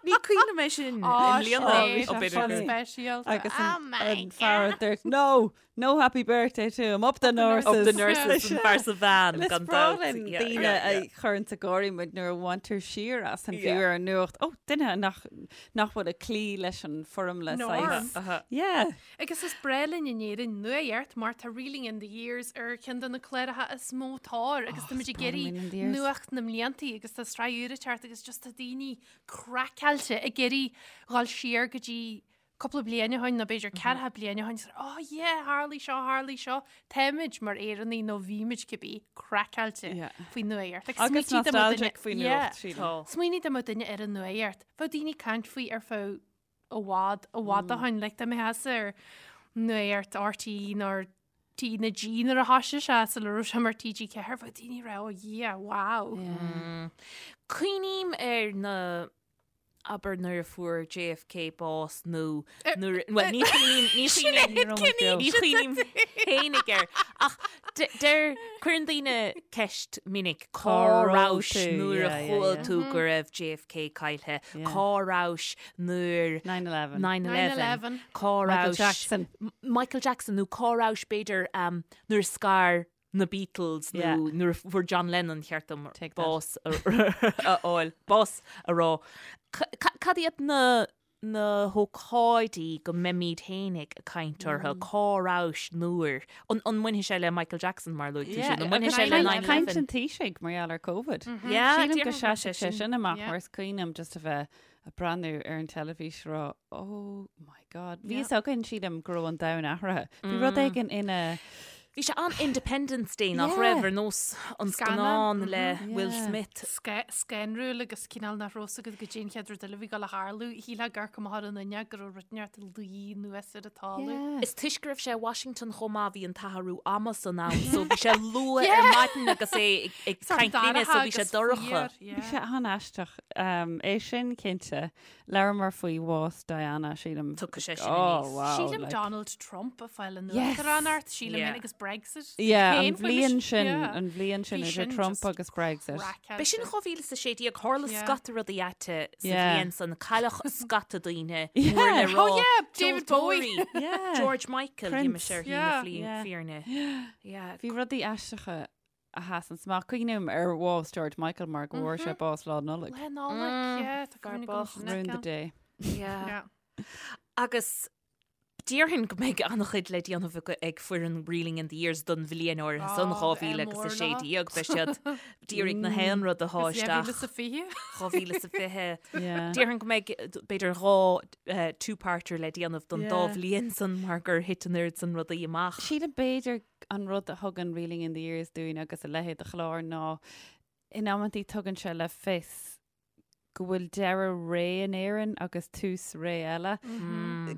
S2: Ní cuimhin liom é sin i mbliana.
S3: Ó, bhí sé speisialta.
S4: Agus an fear a dúirt, no, No happy birthday to him, up the nurses.
S2: Up the nurses, an fear sa veain,
S4: Is
S2: gan
S4: breá
S2: dabht.
S4: linn
S2: Yeah,
S4: daoine
S2: yeah,
S4: a
S2: yeah.
S4: chuireann ag gáirí muid nuair a bhaintear siar as an fiú
S2: Yeah.
S4: ar an nuacht. Ó, duine nach, nach bhfuil ag cloí leis an foirmle
S3: Norm.
S4: saghas.
S2: Aha.
S4: Yeah.
S3: Agus is breá linn in Éirinn nuacht mar tá Reeling in the Years ar cheann de na cláracha is mó tóir agus
S4: Oh,
S3: tá muid
S4: is
S3: ag
S4: breá liom
S3: iarraidh
S4: Reeling in the Years.
S3: nuacht na mbliantaí agus tá sraith úr ag teacht agus just tá daoine craiceáilte ag iarraidh dhul siar go dtí cúpla bliain ó shin nó b'fhéidir ceathracha bliain ó shin, is oh yeah, tharlaigh seo, tharlaigh seo. Táimid mar Éireannaigh nó bhímid cibé craiceáilte
S4: Yeah.
S3: faoi nuacht. Like,
S4: Agus
S3: smaointigh dá mbeadh duine-
S4: nostalgic faoi
S3: Yeah.
S4: nuacht, sílim.
S2: Tá.
S3: Smaoinigh dá mbeadh duine ar an nuacht. Bheadh daoine ag caint faoi ar feadh i bhfad, i bhfad ó shin. Like, dá mbeifeása ar nuacht RTÉ nó ar T na G nuair a thoisigh sé sula raibh sé mar TG4, bheadh daoine ag rá, oh yeah, wow.
S2: Cuimhním ar na abair nuair a fuair JFK bás nó nuair, bhuel ní chuimhním, ní chuimhním, ní chuimhním fhéinig air ach deir, cuireann daoine ceist minic cá rabhais nuair a chuala tú go raibh JFK caillthe, cá rabhais nuair
S4: 9/11,
S2: 9/11, cá
S4: Michael
S2: rabhais
S4: Jackson,
S2: Michael Jackson nó cá rabhais b'fhéidir nuair a scar na Beatles nó nuair a fuair John Lennon cheart dom bás a fháil, bás a rá. Cad iad na na hócáidí go mbeimid fhéinig ag caint orthu, cá rabhais nuair, an an mbainfidh sé le Michael Jackson mar a luaigh tú sin, an mbainfidh sé le
S4: Caint
S2: 9/11?
S4: an Taoisigh mar gheall ar Covid.
S2: Yeah,
S4: Sílim go
S2: déarfainn go bhfuil
S4: seasfaidh sé sin amach mar is cuimhin liom just a bheith ag breathnú ar an teilifís ag rá oh my God. Bhí fhios againn sílim go raibh an domhan athraithe. Bhí rud éigin ina
S2: Bhí sé an-Independence Day nach raibh ar nós an scannán le Will Smith.
S3: Scanrúil agus cineál nach raibh fhios agat goidé an chéad rud eile a bhí ag dul a tharlú. Shílfeá gur amharc amach ar an fhuinneog go raibh rud inteacht ag luí anuas ar an talamh.
S2: Is toisc go raibh sé i Washington chomh maith bhí an t-athrú ama san ann so bhí sé luath ar maidin agus é ag caint linne so bhí sé dorcha.
S4: Bhí sé an-aisteach. É sin cinnte. Labhramar faoi bhás Diana, sílim.
S2: Tiocfaidh sé sin aníos.
S4: Oh, wow.
S3: Sílim
S4: like.
S3: Donald Trump ag fáil an
S4: Yes.
S3: uachtaránacht, sílim
S2: Yeah.
S3: é agus Brexit.
S4: Yeah, an bhliain sin, an bhliain sin idir Trump agus Brexit.
S2: B'é sin 2016, tharla scata rudaí aite sa bhliain san, cailleadh scata daoine, mór le rá.
S3: Oh yeah, David Bowie.
S2: George Michael, bhí mise ar shlí na fírinne.
S4: Bhí rudaí aisteacha a sheasann amach. Cuimhním ar bhás George Michael mar go bhfuair sé bás Lá Nollag.
S3: Lá Nollag, yeah, tá cuimhne agam sin.
S4: Ruined the day.
S2: Yeah. Agus déarfainn go mbeidh an-chuid le déanamh ag foireann Reeling in the Years don bhliain áirithe san, 2016. Beidh siad d'iarraidh na haon rud a shá isteach.
S3: 2020.
S2: 2020. Déarfainn go mbeidh b'fhéidir dhá two-parter le déanamh don dá bhliain san mar gur thit an oiread san rudaí amach.
S4: Sílim b'fhéidir an rud a thugann Reeling in the Years dúinn agus a leithéid de chlár ná in amantaí tugann sé le fios go bhfuil deireadh ré in Éirinn agus tús ré eile.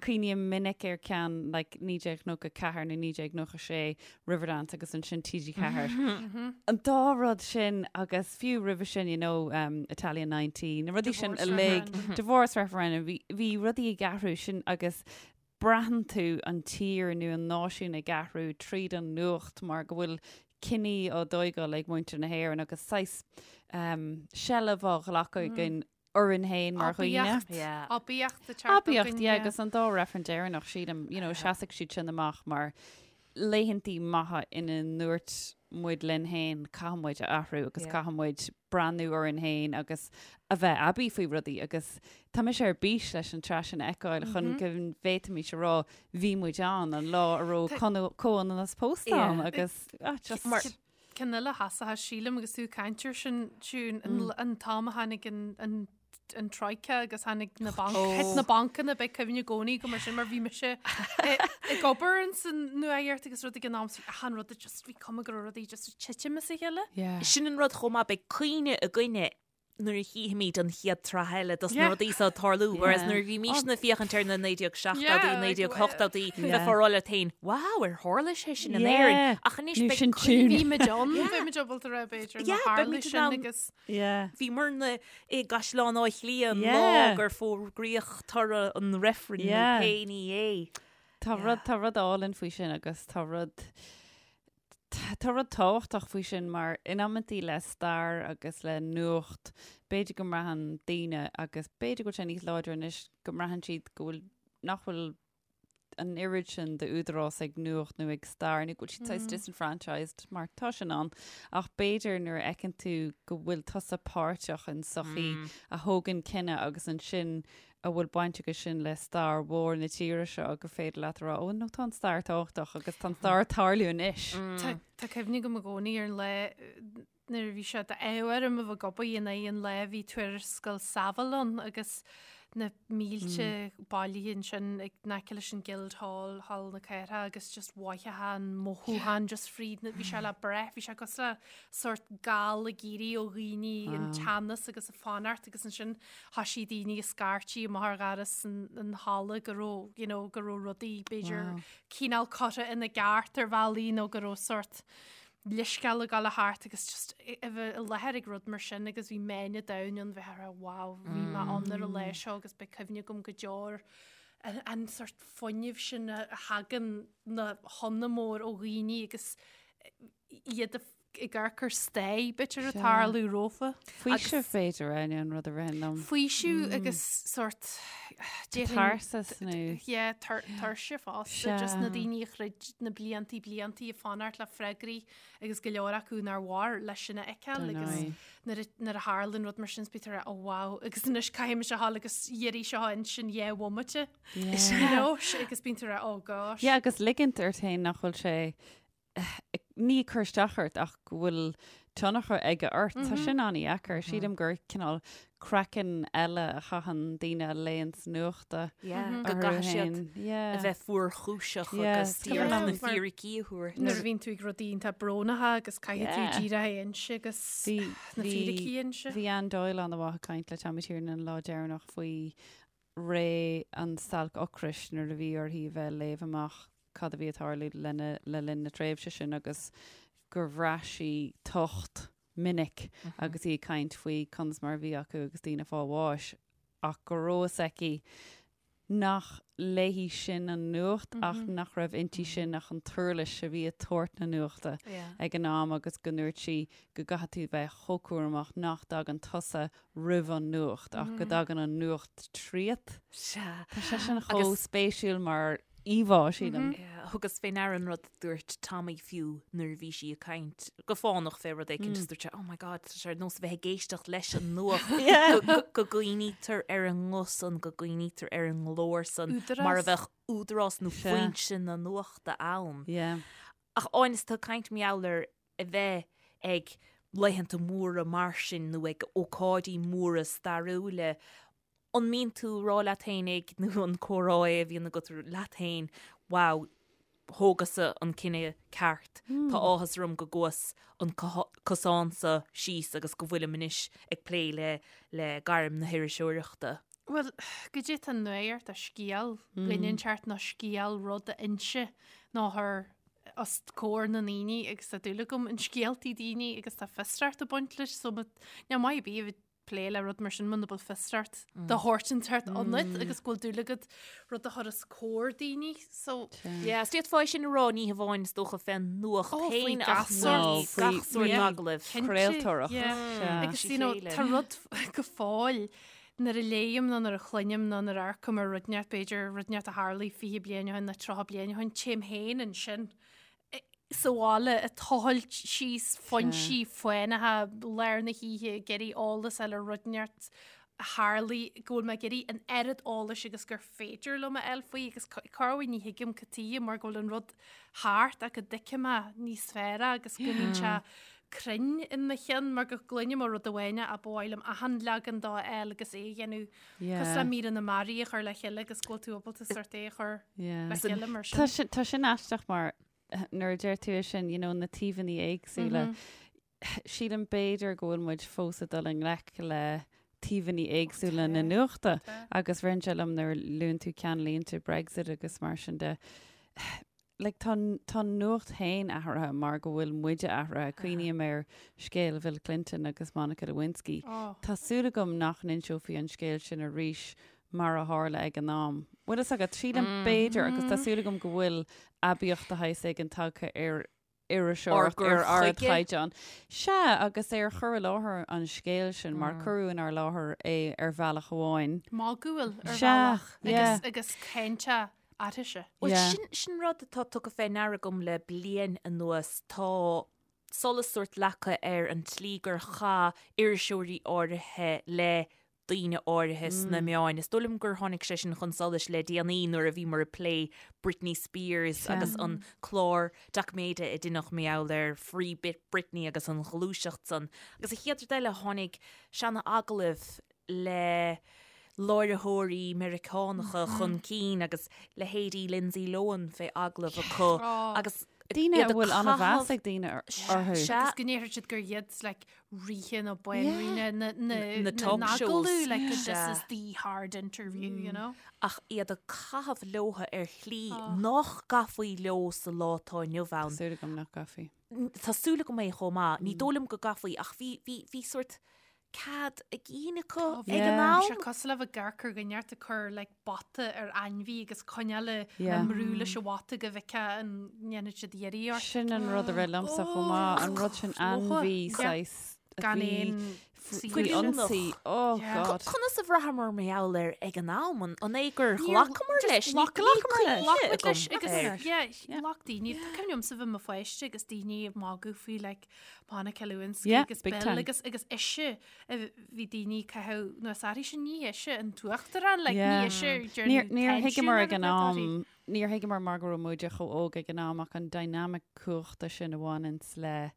S4: Cuimhním minic ar ceann like 1994 nó 1996 Riverdance agus ansin TG4. An dá rud sin agus fiú roimhe sin you know um, Italia 90, na rudaí sin uilig, divorce referendum, bhí, bhí rudaí ag athrú sin agus braitheann tú an tír nó an náisiún ag athrú tríd an nuacht mar go bhfuil cinní á dtóigáil ag muintir na hÉireann agus saghas seilbh á ghlacadh againn orainn féin mar dhaoine.
S3: Aibíocht. Aibíocht ag teacht
S4: Aibíocht, yeah, agus an dá reifreann deireanach, sílim, you know, seasfaidh siad sin amach mar laethantaí maithe ina ndúirt muid linn féin, caithfidh muid a athrú agus caithfidh muid breathnú orainn féin agus a bheith aibí faoi rudaí agus tá mise ar bís leis an tsraith sin a fheiceáil chun go bhféadfaimis a rá bhí muid ann an lá a raibh comhionannas pósta ann agus ah, just
S3: Mar ceann eile a sheasfadh, sílim agus tú ag caint air sin, Siún, an t-am a tháinig an an Troika agus tháinig na banc, thit na bancanna, beidh cuimhne i gcónaí agam air sin mar bhí mise ag obair ins an nuacht agus rud ag an am so achan rud just bhí cuma go raibh rudaí just ag titim as a chéile.
S4: Yeah.
S2: Sin an rud chomh maith, beidh cuimhne againne nuair a chífimid an chéad tsraith eile dos na rudaí seo ag tarlú, whereas nuair a bhímisne ag féachaint ar na 1970idí, 1980idí, bheifeá ag rá leat féin, wow, ar tharla sé sin in Éirinn? Ach anois
S4: Nó
S2: beidh
S4: sin
S2: cuimhne.
S4: tune.
S3: Bhí muid ann, bhí muid ábalta a rá b'fhéidir,
S2: Yeah,
S3: má tharla
S2: beimid in
S3: sin
S2: ann.
S3: agus
S4: Yeah.
S2: Bhíomarna i gCaisleán Átha Cliath an lá
S4: Yeah.
S2: gur fógraíodh toradh an reifrinn nó
S4: Yeah.
S2: pé ní é.
S4: Tá rud, tá rud álainn faoi sin agus tá rud, tá rud tábhachtach faoi sin mar in amantaí le stair agus le nuacht, b'fhéidir go mbraitheann daoine agus b'fhéidir go bhfuil sé níos láidre anois go mbraitheann siad go bhfuil, nach bhfuil an oiread sin d'údarás ag nuacht nó ag stair nó go bhfuil siad saghas disenfranchised mar tá sin ann ach b'fhéidir nuair a fheiceann tú go bhfuil tusa páirteach in sochaí a thógann cinneadh agus ansin a bhfuil baint aige sin le stair mhór na tíre seo gur féidir leat a rá ó no tá an stair tábhachtach agus tá an stair ag tarlú anois.
S3: Tá cuimhne agam i gcónaí ar an lá nuair a bhí sé d'ádh orm a bheith ag obair in aghaidh an lae bhí tuarascáil Saville ann agus na mílte bailithe ansin ag in aice leis an Guildhall, Halla na Cathrach agus just mhothófá an mothúchán just fríd na, bhí sé le brath, bhí sé cosúil le sórt gal ag éirí ó dhaoine an teannas agus a fanacht agus ansin thoisigh daoine ag scairtigh amach ar dhoras an, an halla go raibh, you know, go raibh rudaí b'fhéidir cineál curtha ina gceart ar bhealaí nó go raibh sórt leithscéal ag gabháil thart agus just a bheith i láthair ag rud mar sin agus bhí meáin an domhain ann bheith ag rá wow bhí mé ann ar an lá seo agus beidh cuimhne agam go deo ar an, an sort fuinneamh sin a thagann na hionadh mór ó dhaoine agus iad ag amharc ar stair b'fhéidir ag tarlú rompu.
S4: Faoiseamh b'fhéidir é an rud a ritheann liom.
S3: Faoiseamh agus sort
S4: Catarsis nó.
S3: Yeah, tuirse fosta, just na daoine a throid na bliantaí bliantaí ag fanacht le freagraí agus go leor acu nár mhair leis sin a fheiceáil agus nuair a tharlaíonn rud mar sin is bítear oh wow agus anois caithfidh mise a ghabháil agus iarraidh seo a insint dhá bhomaite. You know, agus bíonn tú ag rá oh gosh.
S4: Yeah, agus ligint ort féin nach bhfuil sé ní ag cur isteach ort ach go bhfuil tionchar aige ort. Tá sin an-dheacair. Sílim gur cineál craiceann eile a chaitheann daoine a léanns nuachta
S2: Go gcaithfidh siad a bheith fuarchúiseach agus díreach na fíricí a thabhairt.
S3: Nuair a bhíonn tú ag rudaí iontach brónacha agus caithfidh tú díreach a inse agus na fíricí a inse.
S4: Bhí Anne Doyle an-mhaith ag caint le Tommy Tiernan an lá deireanach faoi ré an stailc ocrais nuair a bhí uirthi a bheith ag léamh amach cad a bhí ag tarlú lena le linn na tréimhse sin agus gur bhraith sí tocht minic agus í ag caint faoi conas mar a bhí acu agus daoine ag fáil bháis ach go raibh fhios aici. nach léi sin an nuacht ach nach raibh inti sin ach an t-uirlis a bhí ag tabhairt na nuachta ag an am agus go ndúirt sí go gcaithfidh tú bheith chomh cúramach nach dtagann tusa roimh an nuacht ach go dtagann an nuacht tríot.
S2: Sea.
S4: Tá sé sin chomh spéisiúil mar íomhá, sílim.
S2: Thugas fé ndeara an rud a dúirt Tommy fiú nuair a bhí sí ag caint go fánach fé rud éicint is dúirt sé, oh my god, tá sé ar nós a bheith ag éisteacht leis an nuacht go gcuimhnítear ar an nguth san, go gcuimhnítear ar an nglór san mar a bheadh údarás nó foinse na nuachta ann. Ach Áine, is tú ag caint mar gheall ar a bheith ag laethanta móra mar sin nó ag ócáidí móra stairiúla, An mbíonn tú ag rá leat fhéinig, nó an comhrá é a bhíonn agat leat féin, wow, thógas-sa an cinneadh ceart, tá áthas orm go gcuas an cosán so síos agus go bhfuilim anois ag plé le le gairm na hiriseoireachta?
S3: Bhuel, goidé tá nuacht a scéal dhuine inteacht nó scéal rud a inse nó a chur os comhair na ndaoine agus tá dúil agam in scéaltaí daoine agus tá fiosracht ag baint leis so níl maith ar bith a bheith plé le rud mar sin muna bhfuil fiosracht de shórt inteacht ionat agus go bhfuil dúil agat rud a chur os comhair daoine so
S2: Yeah, is d'fhéadfá é sin a rá ní hamháin is dócha fén nuacht
S3: Oh, faoi
S2: féin
S3: gach
S2: ach
S3: sórt.
S2: faoi
S4: Faoi-
S2: gach sórt
S3: yeah.
S2: agallaimh.
S3: Cinnte,
S4: Craoltóireacht.
S3: yeah.
S4: Sea.
S3: Agus you know,
S2: Chéile.
S3: tá rud go fóill nuair a léim nó nuair a chluinim nó nuair a amharcaim ar rud inteacht b'fhéidir rud inteacht a tharlaigh 20 bliain ó shin nó 30 bliain ó shin téim féin ansin sa bhaile ag tochailt síos foinsí fánacha lár na hoíche ag iarraidh eolas a fháil ar rud inteacht a tharlaigh go bhfuil mé ag iarraidh an oiread eolais agus gur féidir liom a fháil faoi agus corruair ní thuigim cad tuige mar go bhfuil an rud thart ach go dtuigim é níos fearr agus go mbíonn sé cruinn in mo cheann mar go gcluinim ó rud amháin ach ba mhaith liom achan leagan dó a fháil agus é a dhéanamh Cosúil le míreanna mearaí a chur le chéile agus go bhfuil tú ábalta sort é a chur le chéile mar
S4: Tá
S3: sin.
S4: sin, tá sin aisteach mar nuair a deir tú é sin, you know, na taobhanna éagsúla, sílim b'fhéidir go bhfuil muid fós ag dul i ngleic le taobhanna éagsúla na nuachta agus ritheann sé liom nuair a luann tú ceannlínte Brexit agus mar sin de, like, tá, tá an nuacht féin athraithe mar go bhfuil muide athraithe. Cuimhním ar scéal Bhill Clinton agus Monica Lewinsky.
S3: Oh.
S4: Tá súil agam nach n-inseofaí an scéal sin arís mar a tharla ag an am. Bhfuil fhios agat, sílim b'fhéidir agus tá súil agam go bhfuil aibíocht de shaghas éigin tagtha ar iriseoireacht
S2: Ár
S4: ar
S2: gcur chuige.
S4: ardchaighdeán. Sea, agus ar chur i láthair an scéil sin, mar cuireadh inár láthair é ar bhealach amháin.
S3: Magúil ar
S4: Sea,
S3: bhealach
S4: yeah.
S3: agus, agus cainte aithrise.
S2: Bhuel,
S4: Yeah.
S2: sin, sin rud atá tugtha fé ndeara agam le bliain anuas. Tá solas sórt leagtha ar an tslí gur chaith iriseoirí áirithe le daoine áirithe sna meáin. Is dóigh liom gur tháinig sé sin chun solais le déanaí nuair a bhíomar ag plé Britney Spears agus an clár doiciméide a deineadh mar gheall ar Free Britney agus an ghluaiseacht san. Agus an chéad rud eile, tháinig seana-agallaimh le láithreoirí Meiriceánacha chun cinn agus leithéidí Lindsay Lohan fé agallamh acu agus
S4: Daoine a
S2: iad ag
S4: bhfuil an-mheas
S2: caitheamh
S4: ag daoine orthu.
S2: Sea.
S3: Agus go ndéarfadh siad gur iad like, ríthe nó banríona na, na,
S2: Na
S3: na
S2: talk shows.
S3: n-agallamh, like, this
S2: Sea.
S3: is the hard interview, you know?
S2: ach iad ag caitheamh leotha ar shlí nach gcaithfí leo sa lá atá inniu ann.
S4: Tá súil agam nach gcaithfí.
S2: Tá súil agam é chomh maith. Ní dóigh liom go gcaithfí ach bhí, bhí, bhí sórt cead a gcinn acu ag an
S3: Bhí sé
S2: am.
S3: cosúil le bheith ag amharc ar dhuine inteacht ag cur like, bata ar ainmhí agus coinneáil
S4: Yeah.
S3: yeah. brú leis an bhata go bhfeicfeá an ndéanfaidh siad iarraidh ort.
S4: Sin an rud a rith liomsa chomh maith, an rud sin ainmhí
S3: Yeah.
S4: saghas a
S3: Gan
S4: bhí
S3: aon
S4: faoi
S3: saoirse.
S4: ionsaí. Oh
S3: Yeah.
S4: God.
S2: Conas a bhraitheamar mar gheall air ag an am? An an é gur
S3: Níor-
S2: ghlacamar
S3: just
S2: leis? Ní
S3: ghlac-
S2: ní
S3: ghlacamar
S2: cuimhne
S3: leis
S2: agam
S3: leis agus
S2: air.
S3: yeah,
S4: Yeah.
S3: ghlac daoine. Tá cuimhne agamsa bheith i mo pháiste agus daoine ag magadh faoi like Monica Lewinsky
S4: Yeah,
S3: agus
S4: big
S3: Bill
S4: time.
S3: agus agus ise a bhí daoine ag caitheamh nó is airí sin ní ise an t-uachtarán like,
S4: Yeah.
S3: ní ise
S4: Níor níor thuigeamar ag an am, níor thuigeamar mar go raibh muide chomh óg ag an am ach an dynamic cumhachta sin a bhaineanns le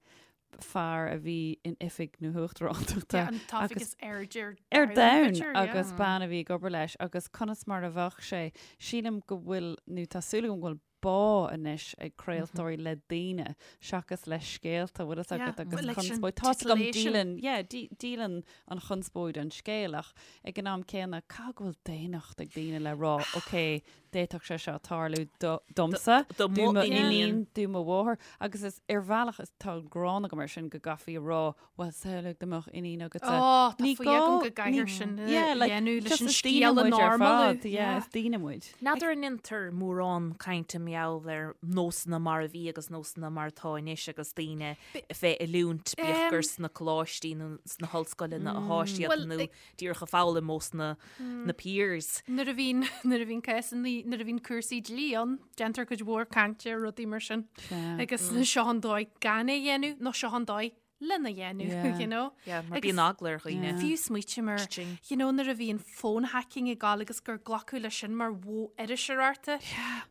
S4: fear a bhí in oifig na huachtarántachta
S3: an t-oifig
S4: agus
S3: is airde ar
S4: ar domhan
S3: domhan, b'fhéidir, yeah.
S4: agus bean a bhí ag obair leis agus conas mar a bheadh sé. Sílim go bhfuil, nó tá súil agam go bhfuil bá anois ag craoltóirí le daoine seachas le scéalta, bhfuil fhios agat, agus
S3: like sin
S4: conspóid. Tá's agam
S3: titillation.
S4: díolann, yeah, dí- díolann an chonspóid an scéal ach ag an am céanna caithfidh go bhfuil daonnacht ag daoine le rá, ok, d'fhéadfadh sé seo tarlú domsa,
S2: Do
S4: do
S2: mo iníon.
S4: do mo mháthair agus is ar bhealach is tá gráin agam air sin go gcaithfí a rá bhuel samhlaigh dá mbeadh iníon agatsa.
S3: Ó, tá
S4: Ní
S3: faoi agam
S4: gá-
S3: go gcaithfear
S4: ní-
S3: sin a
S4: Yeah, like,
S3: dhéanamh leis
S4: just
S3: an
S4: is daoine
S3: scéal a
S4: muid ar
S3: normalú.
S4: fad, yeah, is daoine muid.
S2: N'fheadar an ndéantar mórán cainte mar gheall ar nósanna mar a bhí agus nósanna mar atá anois agus daoine fé oiliúint, bíodh gur sna coláistí nó sna hollscoileanna atá siad
S3: Bhuel,
S2: nó díreach ag foghlaim ós na na peers.
S3: Nuair a bhíonn nuair a bhíonn cásanna nuair a bhíonn cúrsaí dlí ann, déantar cuid mhór cainte ar rudaí mar sin. Agus seo an dóigh gan é a dhéanamh nó seo an dóigh lena dhéanamh,
S4: Yeah.
S3: you know?
S2: Yeah, mar
S3: Agus
S2: bíonn eagla ar dhaoine.
S3: Fiú smaoitim ar,
S2: Cha-ching.
S3: you know, nuair a bhíonn phone hacking ag gabháil agus gur glacadh leis sin mar mhodh iriseoireachta.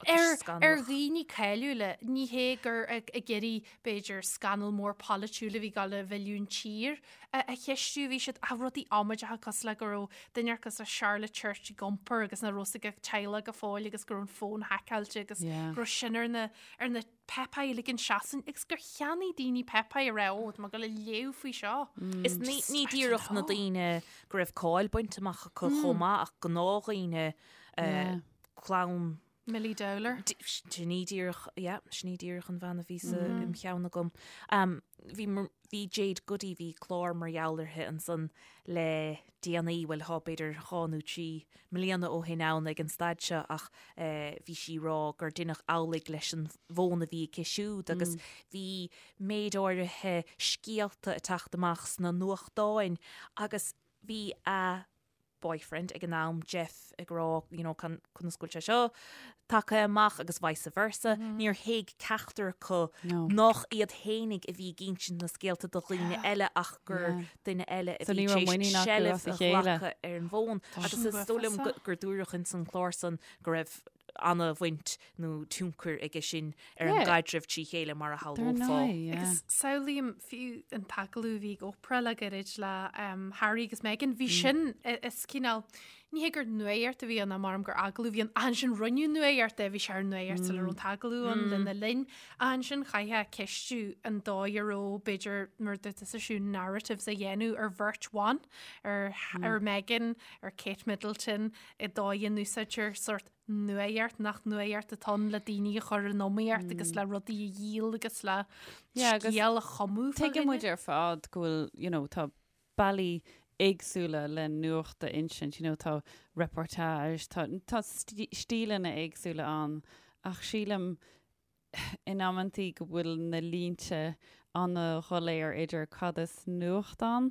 S3: Ar,
S2: scannalach.
S3: ar dhaoine cáiliúla, ní hé gur ag, ag iarraidh, b'fhéidir, scannal mór polaitiúil a bhí ag gabháil a mhilleadh an tír a, a cheistiú, bhí siad, ah, rudaí amaideacha cosúil le go raibh duine cosúil le Charlotte Church ag iompar agus nach raibh a fhios ag a teaghlach go fóill agus go raibh an fón haiceáilte agus
S4: Yeah.
S3: go raibh sin ar na, ar na páipéir uilig an seachtain agus gur cheannaigh daoine páipéir a raibh ó, tá mé ag dul a léamh faoi seo.
S2: Is ní ní díreach na daoine go raibh cáil bainte amach acu chomh maith ach gnáthdhaoine clann
S3: Milly Dowler.
S2: Sin í díreach, yeah, sin í díreach an bhean a bhí sa im cheann agam. Bhí bhí Jade Goody, bhí clár mar gheall uirthi ansan le déanaí, bhuel thá b'fhéidir dhá nó trí mbliana ó shin ann ag an staid seo ach bhí sí ag rá gur deineadh amhlaidh leis an bhfón a bhí aici siúd agus bhí méid áirithe scéalta ag teacht amach sna nuachtáin agus bhí a boyfriend ag an am, Jeff, ag rá you know conas go bhfuil sé seo tagtha amach agus vice versa. Níor thuig ceachtar acu nach iad fhéinig a bhí ag insint na scéalta do dhaoine eile ach gur duine eile a bhí tar éis seilbh a ghlacadh ar an bhfón. Agus is dóigh liom gur dúradh ins an chlár san go raibh ana-bhaint nó tionchar aige sin ar an gcaidreamh trí chéile mar a shamhlófá.
S3: Agus samhlaím fiú an t-agallamh a bhí ag Oprah le gairid le Harry agus Meghan, bhí sin, is cineál, ní hé gur nuacht a bhí ann, maram gur agallamh a bhí ann, ach ansin rinneadh nuacht de, bhí sé ar nuacht sula raibh an t-agallamh ann lena linn, ach ansin chaithfeá ceistiú an dóigh a raibh, b'fhéidir, mar a dúirt tusa Siún, narratives a dhéanamh ar bheirt bhan, ar ar Meghan, ar Kate Middleton, an dóigh a n-úsáidtear sórt nuacht nach nuacht atá ann le daoine a chur in iomaíocht agus le rudaí a dhíol agus le
S4: Yeah, agus
S3: scéal a chumadh fá
S4: Tuigeann
S3: dhuine.
S4: muid ar fad go bhfuil, you know, tá bealaí éagsúla le nuacht a insint, you know, tá reportage, tá, tá stíleanna éagsúla ann ach sílim in amantaí go bhfuil na línte ana-dhoiléir idir cad is nuacht ann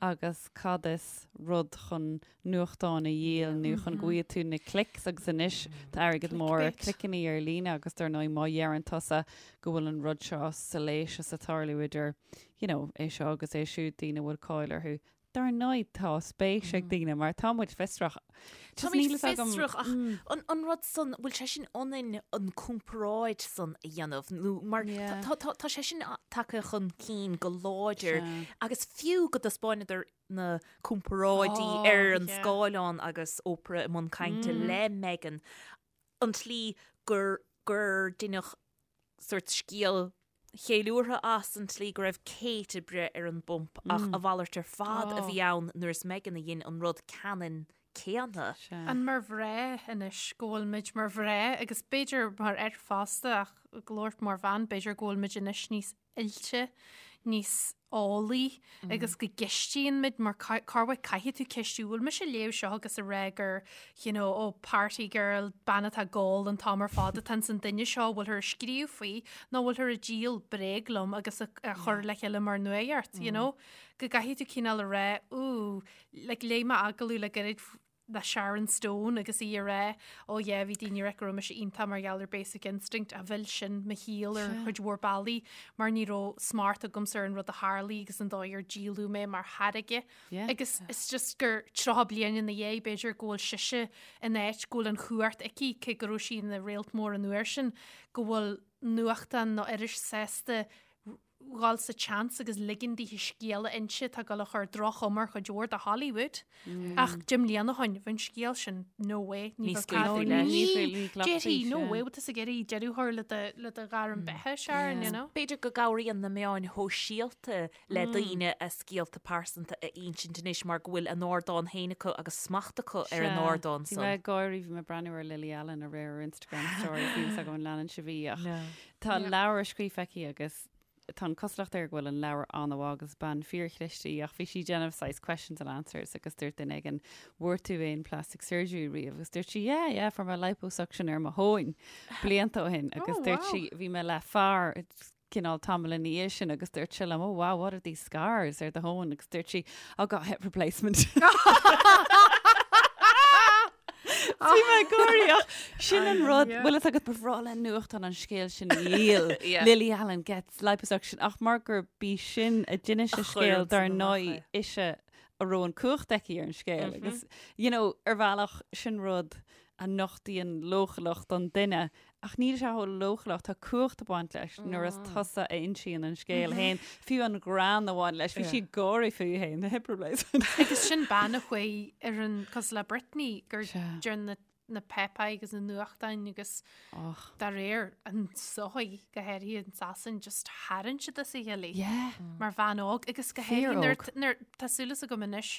S4: agus cad is rud chun nuachtáin a dhíol nó chun go bhfaighidh tú na clicks agus anois tá airgead mór ar cliceanna ar líne agus dar ndóigh má dheireann tusa go bhfuil an rud seo salacious ag tarlú idir you know é seo agus é siúd daoine a bhfuil cáil orthu Dar ndóigh tá spéis ag daoine mar tá muid fiosrach.
S2: Tá muid fiosrach ach an rud san, bhfuil sé sin ionainn an comparáid san a dhéanamh nó mar tá sé sin tagtha chun cinn go láidir agus fiú go dtaispeánadar na comparáidí ar an scáileán agus Oprah i mbun cainte le Meghan, an tslí gur gur deineadh sórt scéal cheiliúrtha as an tslí go raibh Kate ag breith ar an bpump ach a mhalairt ar fad a bhí ann nuair is Meghan a dhein an rud ceannann céanna.
S3: An mar mhná anois go bhfuil muid mar mhná agus b'fhéidir mar fhear fosta ach ag labhairt mar bhean b'fhéidir go bhfuil muid anois níos oilte, níos eolaí agus go gceistíonn muid mar corruair caithfidh tú ceistiú bhfuil mise ag léamh seo agus ag rá gur you know, oh, party girl, bean atá ag ól an t-am ar fad atá ins an duine seo bhfuilthear ag scríobh faoi nó bhfuilthear ag díol bréag liom agus a chur le chéile mar nuacht, you know? Go gcaithfidh tú cineál a rá, ooh, like léigh mé agallamh le gairid le Sharon Stone agus í ag rá oh yeah bhí daoine ag rá go raibh mise iontach mar gheall ar Basic Instinct a mhill sin mo shaol ar chuid mhór bealaí mar ní raibh smacht agamsa ar an rud a tharlaigh agus an dóigh ar díoladh mé mar tháirge agus it's just gur 30 bliain ina dhiaidh b'fhéidir go bhfuil sise in áit go bhfuil an chumhacht aici cé go raibh sí ina réalt mór an uair sin go bhfuil nuachtán nó iris sásta. dhul sa tseans agus ligean daoithe scéal a inse atá ag dul a chur droch-chuma ar chuid mhór de Hollywood. Ach 10 mbliana ó shin, bheadh an scéal sin, no way,
S2: Ní
S3: ní bheadh
S2: scaoilfí
S3: cead-
S2: leis.
S3: Ní,
S4: Ní ghlacfaí
S3: déarfaí, no
S4: sé.
S3: way, bhfuil tusa ag iarraidh deireadh a chur le do, le do ghairm beatha, Sharon, you know?
S2: B'fhéidir go gcabhraíonn na meáin shóisialta le daoine a scéalta pearsanta a insint anois mar go bhfuil a n-ardán féin acu agus smacht acu ar an ardán
S4: Bhí
S2: san.
S4: mé ag gáirí, bhí mé ag breathnú ar Lily Allen aréir ar Instagram stories, níl fhios agam an leanann sibh í ach tá leabhar scríofa aici agus tá an cosúlacht air go bhfuil an leabhar an-mhaith agus bean fíorchliste í ach bhí sí ag déanamh saghas questions and answers agus dúirt duine éigin bhfuair tú aon plastic surgery riamh agus dúirt sí yeah yeah fuair mé liposuction ar mo thóin blianta ó shin agus
S3: Oh,
S4: dúirt
S3: wow.
S4: sí bhí mé le fear cineál tamall ina dhiaidh sin agus dúirt sé liom oh wow what are these scars ar do thóin agus dúirt sí oh got hip replacement. Bhí mé ag gáirí ach sin an rud, bhfuil fhios agat ba bhreá le nuachtán an scéal sin a dhíol, Lily Allen gets liposuction ach mar gur bí sin a d'inis an scéal dar ndóigh ise a raibh an cumhacht aici ar an scéal agus you know ar bhealach sin rud a nochtaíonn leochaileacht don duine Ach níl sé chomh leochaileach, tá cumhacht ag baint leis nuair is tusa a insíonn an scéal féin, fiú an greann a bhain leis, bhí sí ag gáirí fúithi féin, the hip replacement.
S3: Agus sin bean a chuaigh ar an, cosúil le Britney, gur deir na na páipéir agus na nuachtáin agus dá réir an sochaí go háirithe in Sasain just tharraing siad as a chéile í mar bhean óg agus go háirithe nuair nuair tá súil agam anois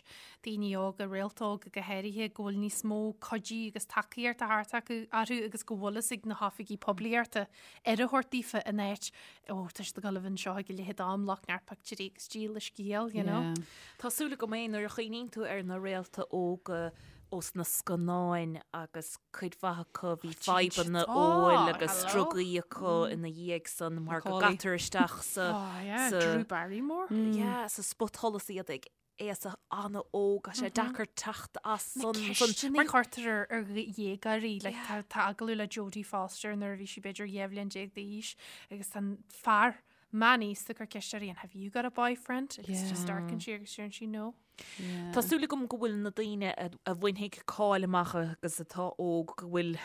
S3: daoine óga, réalta óga go háirithe, go bhfuil níos mó cuidí agus tacaíochta thart acu orthu agus go bhfuil fhios ag na hoifigí poiblíochta aire a thabhairt daofa in áit, ó, tá siad ag dul a bheith anseo ag a leithéid d'am, glac neart pictiúirí agus díol a scéal, you know.
S4: Yeah.
S2: Tá súil agam é nuair a chuimhníonn tú ar na réalta óga ós na scannáin agus cuid mhaith acu bhí fadhbanna óil agus drugaí acu ina dhiaidh san mar go gcaitear isteach sa
S3: Oh yeah, Drew Barrymore.
S2: Yeah, sa spotsholas iad ag aois an-óg, tá sé deacair teacht as san.
S3: Na ceisteanna a chuirtear ar dhéagóirí, like tá tá agallamh le Jodie Foster nuair a bhí sí b'fhéidir 12 bhliain d'aois agus tá an fear meánaosta ag cur ceist uirthi and have you got a boyfriend? Agus just amharcann sí agus deireann sí no.
S2: Tá súil agam go bhfuil na daoine a bhainfidh cáil amach agus atá óg go bhfuil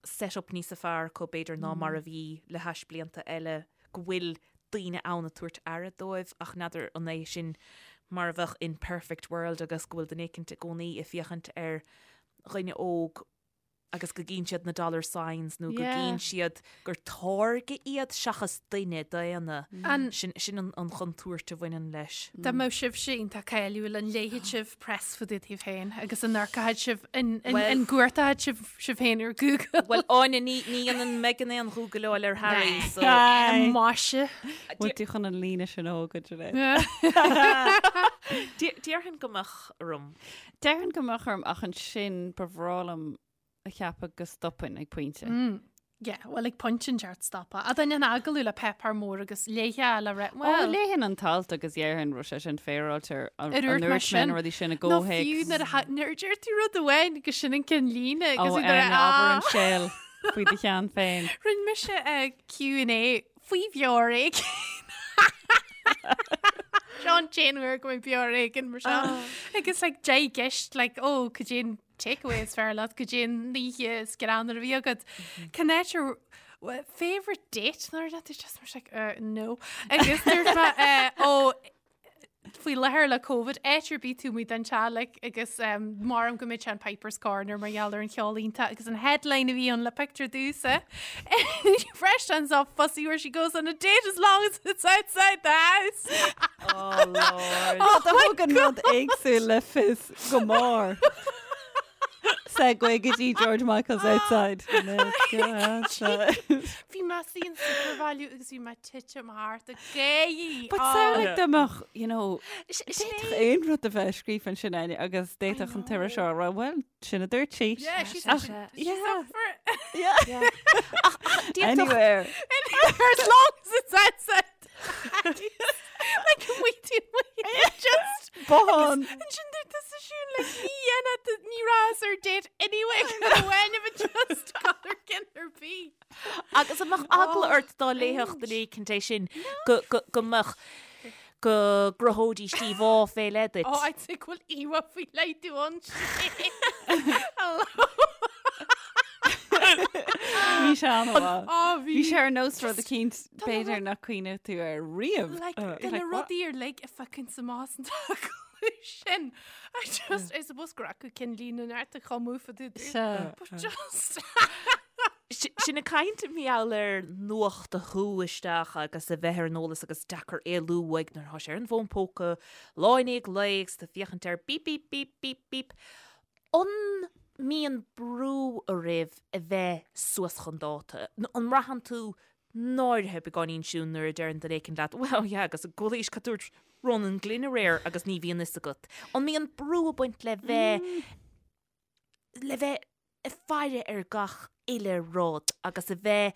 S2: set up níosa fearr acu b'fhéidir ná mar a bhí le hais blianta eile, go bhfuil daoine ann ag tabhairt aire dóibh ach n'fheadar an é sin mar a bheadh in perfect world agus go bhfuil duine éicint i gcónaí ag féachaint ar dhuine óg agus go gcíonn siad na dollar signs nó go gcíonn siad gur táirge iad seachas duine daonna. Sin sin an chontúirt a bhaineann leis.
S3: Dá mbeadh sibhse iontach cáiliúil an léifeadh sibh press fá dtaobh daoibh féin agus an amharcfadh sibh an gcuartódh sibh sibh féin ar Google?
S2: Bhuel Áine ní ní dhéanann Megan aon ghúgaileáil ar Harry so.
S3: Maise.
S4: Bhfuil tú chun an líne sin a thógaint Sinéad?
S2: Déarfainn go mbeadh orm.
S4: Déarfainn go mbeadh orm ach ansin ba bhreá liom a cheapadh go stopfainn ag pointe.
S3: Yeah, well ag pointe inteacht stopadh. A duine an agallamh le páipéar mór agus léifeá le rith,
S4: Ó,
S3: well.
S4: léifinn an t-alt agus dhéarfainn raibh sé sin féaráilte ar
S3: Ar
S4: an
S3: úirt
S4: ndúirt
S3: mé
S4: mé
S3: sin.
S4: na rudaí sin i
S3: Nó fiú
S4: gcomhthéacs.
S3: nuair a tha- nuair a deir tú rud amháin agus sin an ceann líne
S4: Ó,
S3: agus nuair a-
S4: Áine, abair an
S3: ah.
S4: scéal faoi do cheann féin.
S3: Rinne mise eh, Q&A faoi bheár éigin. Seo an t-aon uair go mbeidh beár éigin mar seo. Agus like deich gceist like ó cad é an takeaway is fearr leat cad é an oíche is greannmhaire a bhí agat. Cén áit ar favourite date nuair a tú just mar like uh, no. Agus dúirt mé eh, ó faoi láthair le Covid áit ar bith taobh amuigh den teach agus um, maram go mbeidh sé an Piper's Corner mar gheall ar an cheol iontach agus an headline a bhí ann le picture domhsa. Fresh turns off fussy where she goes on a date as long as it's outside the house.
S2: Oh Lord.
S4: Oh, thug an rud éagsúil le fios go mór. Segue go dtí George Michael's outside. Let's go outside.
S3: Bhí mé in Supervalu agus bhí mé titim thart ag gáirí.
S4: But samhlaigh dá mbeadh, you know, d'fhéadfadh aon rud a bheith scríofa ansin Áine agus d'fhéadfadh an t-iriseoir a rá, well, sin a dúirt sí.
S3: Yeah, she's,
S4: Ach,
S3: she's
S4: yeah.
S3: up for it.
S4: Yeah.
S2: Anywhere.
S3: Anywhere as long as it's outside. Like waiting, waiting, just
S4: Bothán.
S3: Ansin dúirt tusa siún like ní dhéanfaidh tú- ní rabhas ar date anyway go bhfuil but just colour cinn ar bith.
S2: Agus an mbeadh eagla ort dá léifeadh duine éicint é sin go go go mbeadh go gcruthóidís íomhá fé leith duit.
S3: Oh, I'd say go bhfuil íomhá faoi leith dom ansin. Hello.
S4: Bhí sé an-mhaith. Bhí sé ar nós rud eicínt b'fhéidir nach cuimhneodh tú air riamh.
S3: Like, de na rudaí uilig a phiocann amach as an agallamh sin. I just, I suppose gur acu cinnlíne neart a chumú fa dú. But just...
S2: Sinn ag caint mar gheall ar nuacht a shú isteach agus a bheith ar an eolas agus deacair éalú uaidh nuair atá sé ar an bhfón póca lá i ndiaidh lae agus tú ag féachaint air bíp bíp bíp bíp bíp. An mbíonn brú oraibh a bheith suas chun dáta? An mbraitheann tú náirithe beagáinín Siún nuair a deireann duine éicint leat well yeah agus an bhfuil a fhios cad dúirt Ronan Glynn aréir agus ní bhíonn fhios agat. An mbíonn brú ag baint le bheith le bheith ag faire ar gach uile rud agus a bheith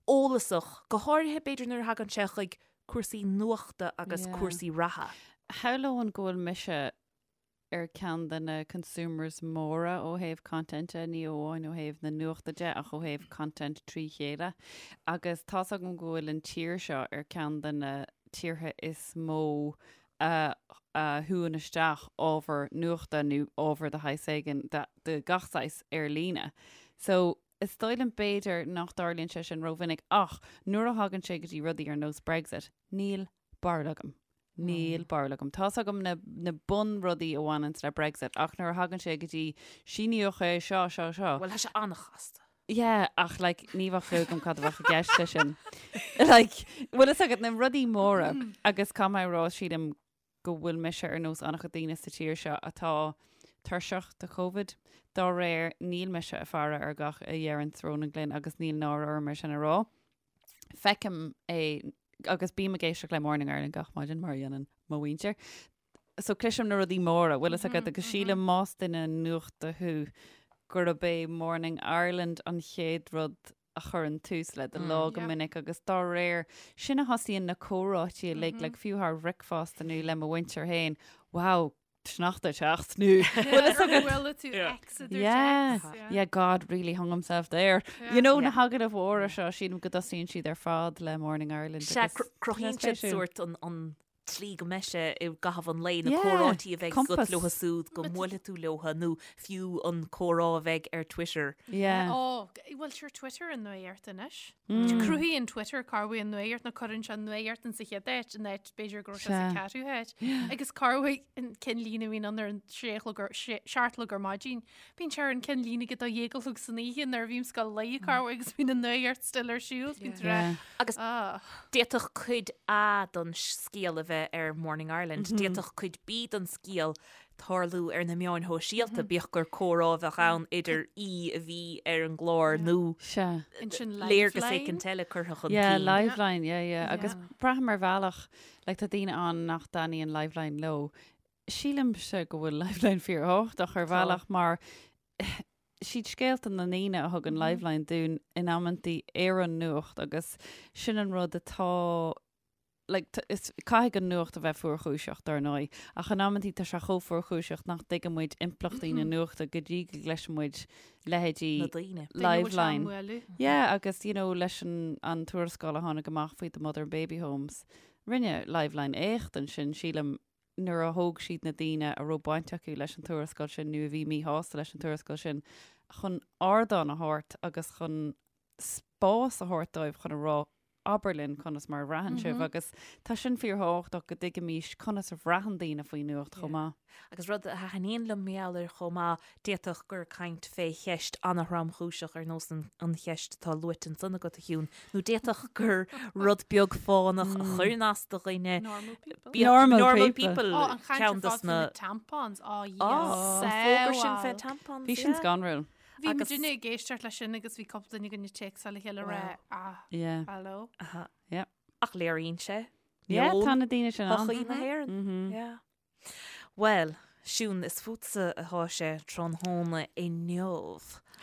S2: eolasach, go háirithe b'fhéidir nuair a thagann sé chuig cúrsaí nuachta agus cúrsaí reatha.
S4: Shamhlóinn go bhfuil mise ar ceann de na consumers móra ó thaobh content de, ní amháin ó thaobh na nuachta de ach ó thaobh content trí chéile. Agus tá's agam go bhfuil an tír seo ar ceann de na tíortha is mó a shúann isteach ábhar nuachta nó ábhar de shaghas éigin de gach saghas ar líne. So, is dóigh liom b'fhéidir nach dtarlaíonn sé sin rómhinic ach nuair a thagann sé go dtí rudaí ar nós Brexit, níl barúil agam. Níl barúil agam. Tá's agam na, na bunrudaí a bhaineanns le Brexit ach nuair a thagann sé go dtí síníodh é seo, seo, seo.
S2: Bhuel, tá sé an-chasta.
S4: Yeah, ach like ní bheadh clue agam cad a bheadh i gceist leis sin. Like, bhfuil fhios agat na rudaí móra agus caithfidh mé a rá sílim go bhfuil mise ar nós an-chuid daoine sa tír seo atá tuirseach de Covid. Dá réir, níl mise ag faire ar gach a dheireanns Ronan Glynn agus níl náire orm é sin a rá. Feicim é agus bím ag éisteacht le Morning Ireland gach maidin mar a dhéanann mo mhuintir. So cloisim na rudaí móra, bhfuil fhios agat, agus sílim más duine nuachta thú gurb é Morning Ireland an chéad rud a chuireann tús le do lá go minic agus dá réir sin a thosaíonn na comhráití uilig, like fiú thar bhricfeasta nó le mo mhuintir féin, wow, sneachta ag teacht nó bhfuil fhios agat.
S3: Bhfuil tú X a dúirt
S4: Yeah,
S3: X, yeah.
S4: yeah, God really hung himself there. You know, na hagallaimh mhóra seo, sílim go dtosaíonn siad ar fad le Morning Ireland
S2: Sea,
S4: agus
S2: cruthaíonn siad
S4: spéisiúil.
S2: sórt an, an tslí go mbeidh sé i gcaitheamh an lae, na
S4: Yeah,
S2: comhráití a bheidh agat
S4: compass.
S2: leotha súd, go mbuailfidh tú leotha, nó fiú an comhrá a bheidh ar Twitter.
S4: Yeah.
S3: Ó, bhuel, sure, Twitter an nuacht anois. Cruthaíonn Twitter corruair an nuacht nó cuireann sé an nuacht in sa chéad áit, in áit b'fhéidir go raibh sé sa
S4: Sea.
S3: ceathrú háit. Agus corruair an ceannlíne a bhíonn ann ar an sé a chlog ar, sé, seacht a chlog ar maidin. Bíonn sé ar an ceannlíne ag a dó dhéag a chlog san oíche nuair a bhím ag gabháil a luí corruair agus bíonn an nuacht still ar siúl. Bíonn tú
S4: Yeah.
S2: Agus d'fhéadfadh cuid A den scéal a bheith ar Morning Ireland, d'fhéadfadh cuid B den scéal tarlú ar na meáin shóisialta, bíodh gur comhrá a bheadh ann idir aoi a bhí ar an gclár nó
S4: Sea.
S3: Ansin
S2: léargas
S3: Liveline.
S2: éicint eile curtha chun
S4: Yeah,
S2: cinn.
S4: Liveline, yeah, yeah. Agus braithim ar bhealach, like, tá daoine ann nach dtaitníonn Liveline leo. Sílimse go bhfuil Liveline fíorthábhachtach ar bhealach mar siad scéalta na ndaoine a thugann Liveline dúinn in amantaí ar an nuacht agus sin an rud atá like, is, caithfidh an nuacht a bheith fuarchúiseach dar ndóigh, ach in amantaí tá sé chomh fuarchúiseach nach dtuigeann muid impleachtaí na nuachta go dtí go gcloiseann muid leithéidí
S2: Na daoine.
S4: Liveline. Yeah, agus you know, leis an, an tuarascáil a tháinig amach faoi the mother and baby homes, rinne Liveline éacht ansin, sílim, nuair a thóg siad na daoine a raibh baint acu leis an tuarascáil sin nó a bhí míshásta leis an tuarascáil sin chun ardán a thabhairt agus chun spás a thabhairt dóibh chun a rá abair linn conas mar a bhraitheann sibh agus tá sin fíorthábhachtach go dtuigimís conas a bhraitheann daoine faoin nuacht chomh maith.
S2: Agus rud a thaitníonn liom mar gheall air chomh maith, d'fhéadfadh gur caint fé cheist an-thromchúiseach ar nós an cheist atá luaite ansan agat, a Shiún, nó d'fhéadfadh gur rud beag fánach a chuireann as do dhuine.
S3: Normal people.
S4: Normal
S2: Normal
S4: people.
S2: people.
S3: Ó, an chaint ar
S2: ceann dos
S3: fad faoi
S2: na
S3: na tampons. Ó,
S2: Ó, an fógra sin fé tampons,
S4: Bhí sin
S2: yeah.
S4: scanrúil.
S3: Bhí
S2: Agus-
S3: muidinne ag éisteacht leis sin agus bhí cúpla duine againn ag téacsáil le chéile ag rá, ah,
S4: Yeah.
S3: hello.
S2: Aha.
S4: Yeah.
S2: Ach léiríonn sé.
S4: Yeah,
S2: meon
S4: tá na daoine sin ann.
S2: shochaí na hÉireann. Yeah. Bhuel, Siún, is fútsa atá sé tráthnóna inniu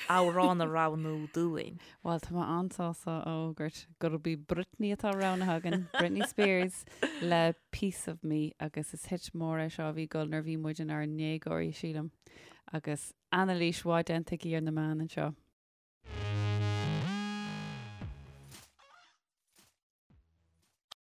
S2: amhrán a roghnú dúinn.
S4: Bhuel, tá mé an-sásta a fhógairt gurb í Britney atá roghnaithe againn, Britney Spears le Piece of Me agus is hit mór é seo a bhí ag dul nuair a bhí muid inár ndéagóirí, sílim. Agus anailís mhaith déanta aici ar na meáin anseo.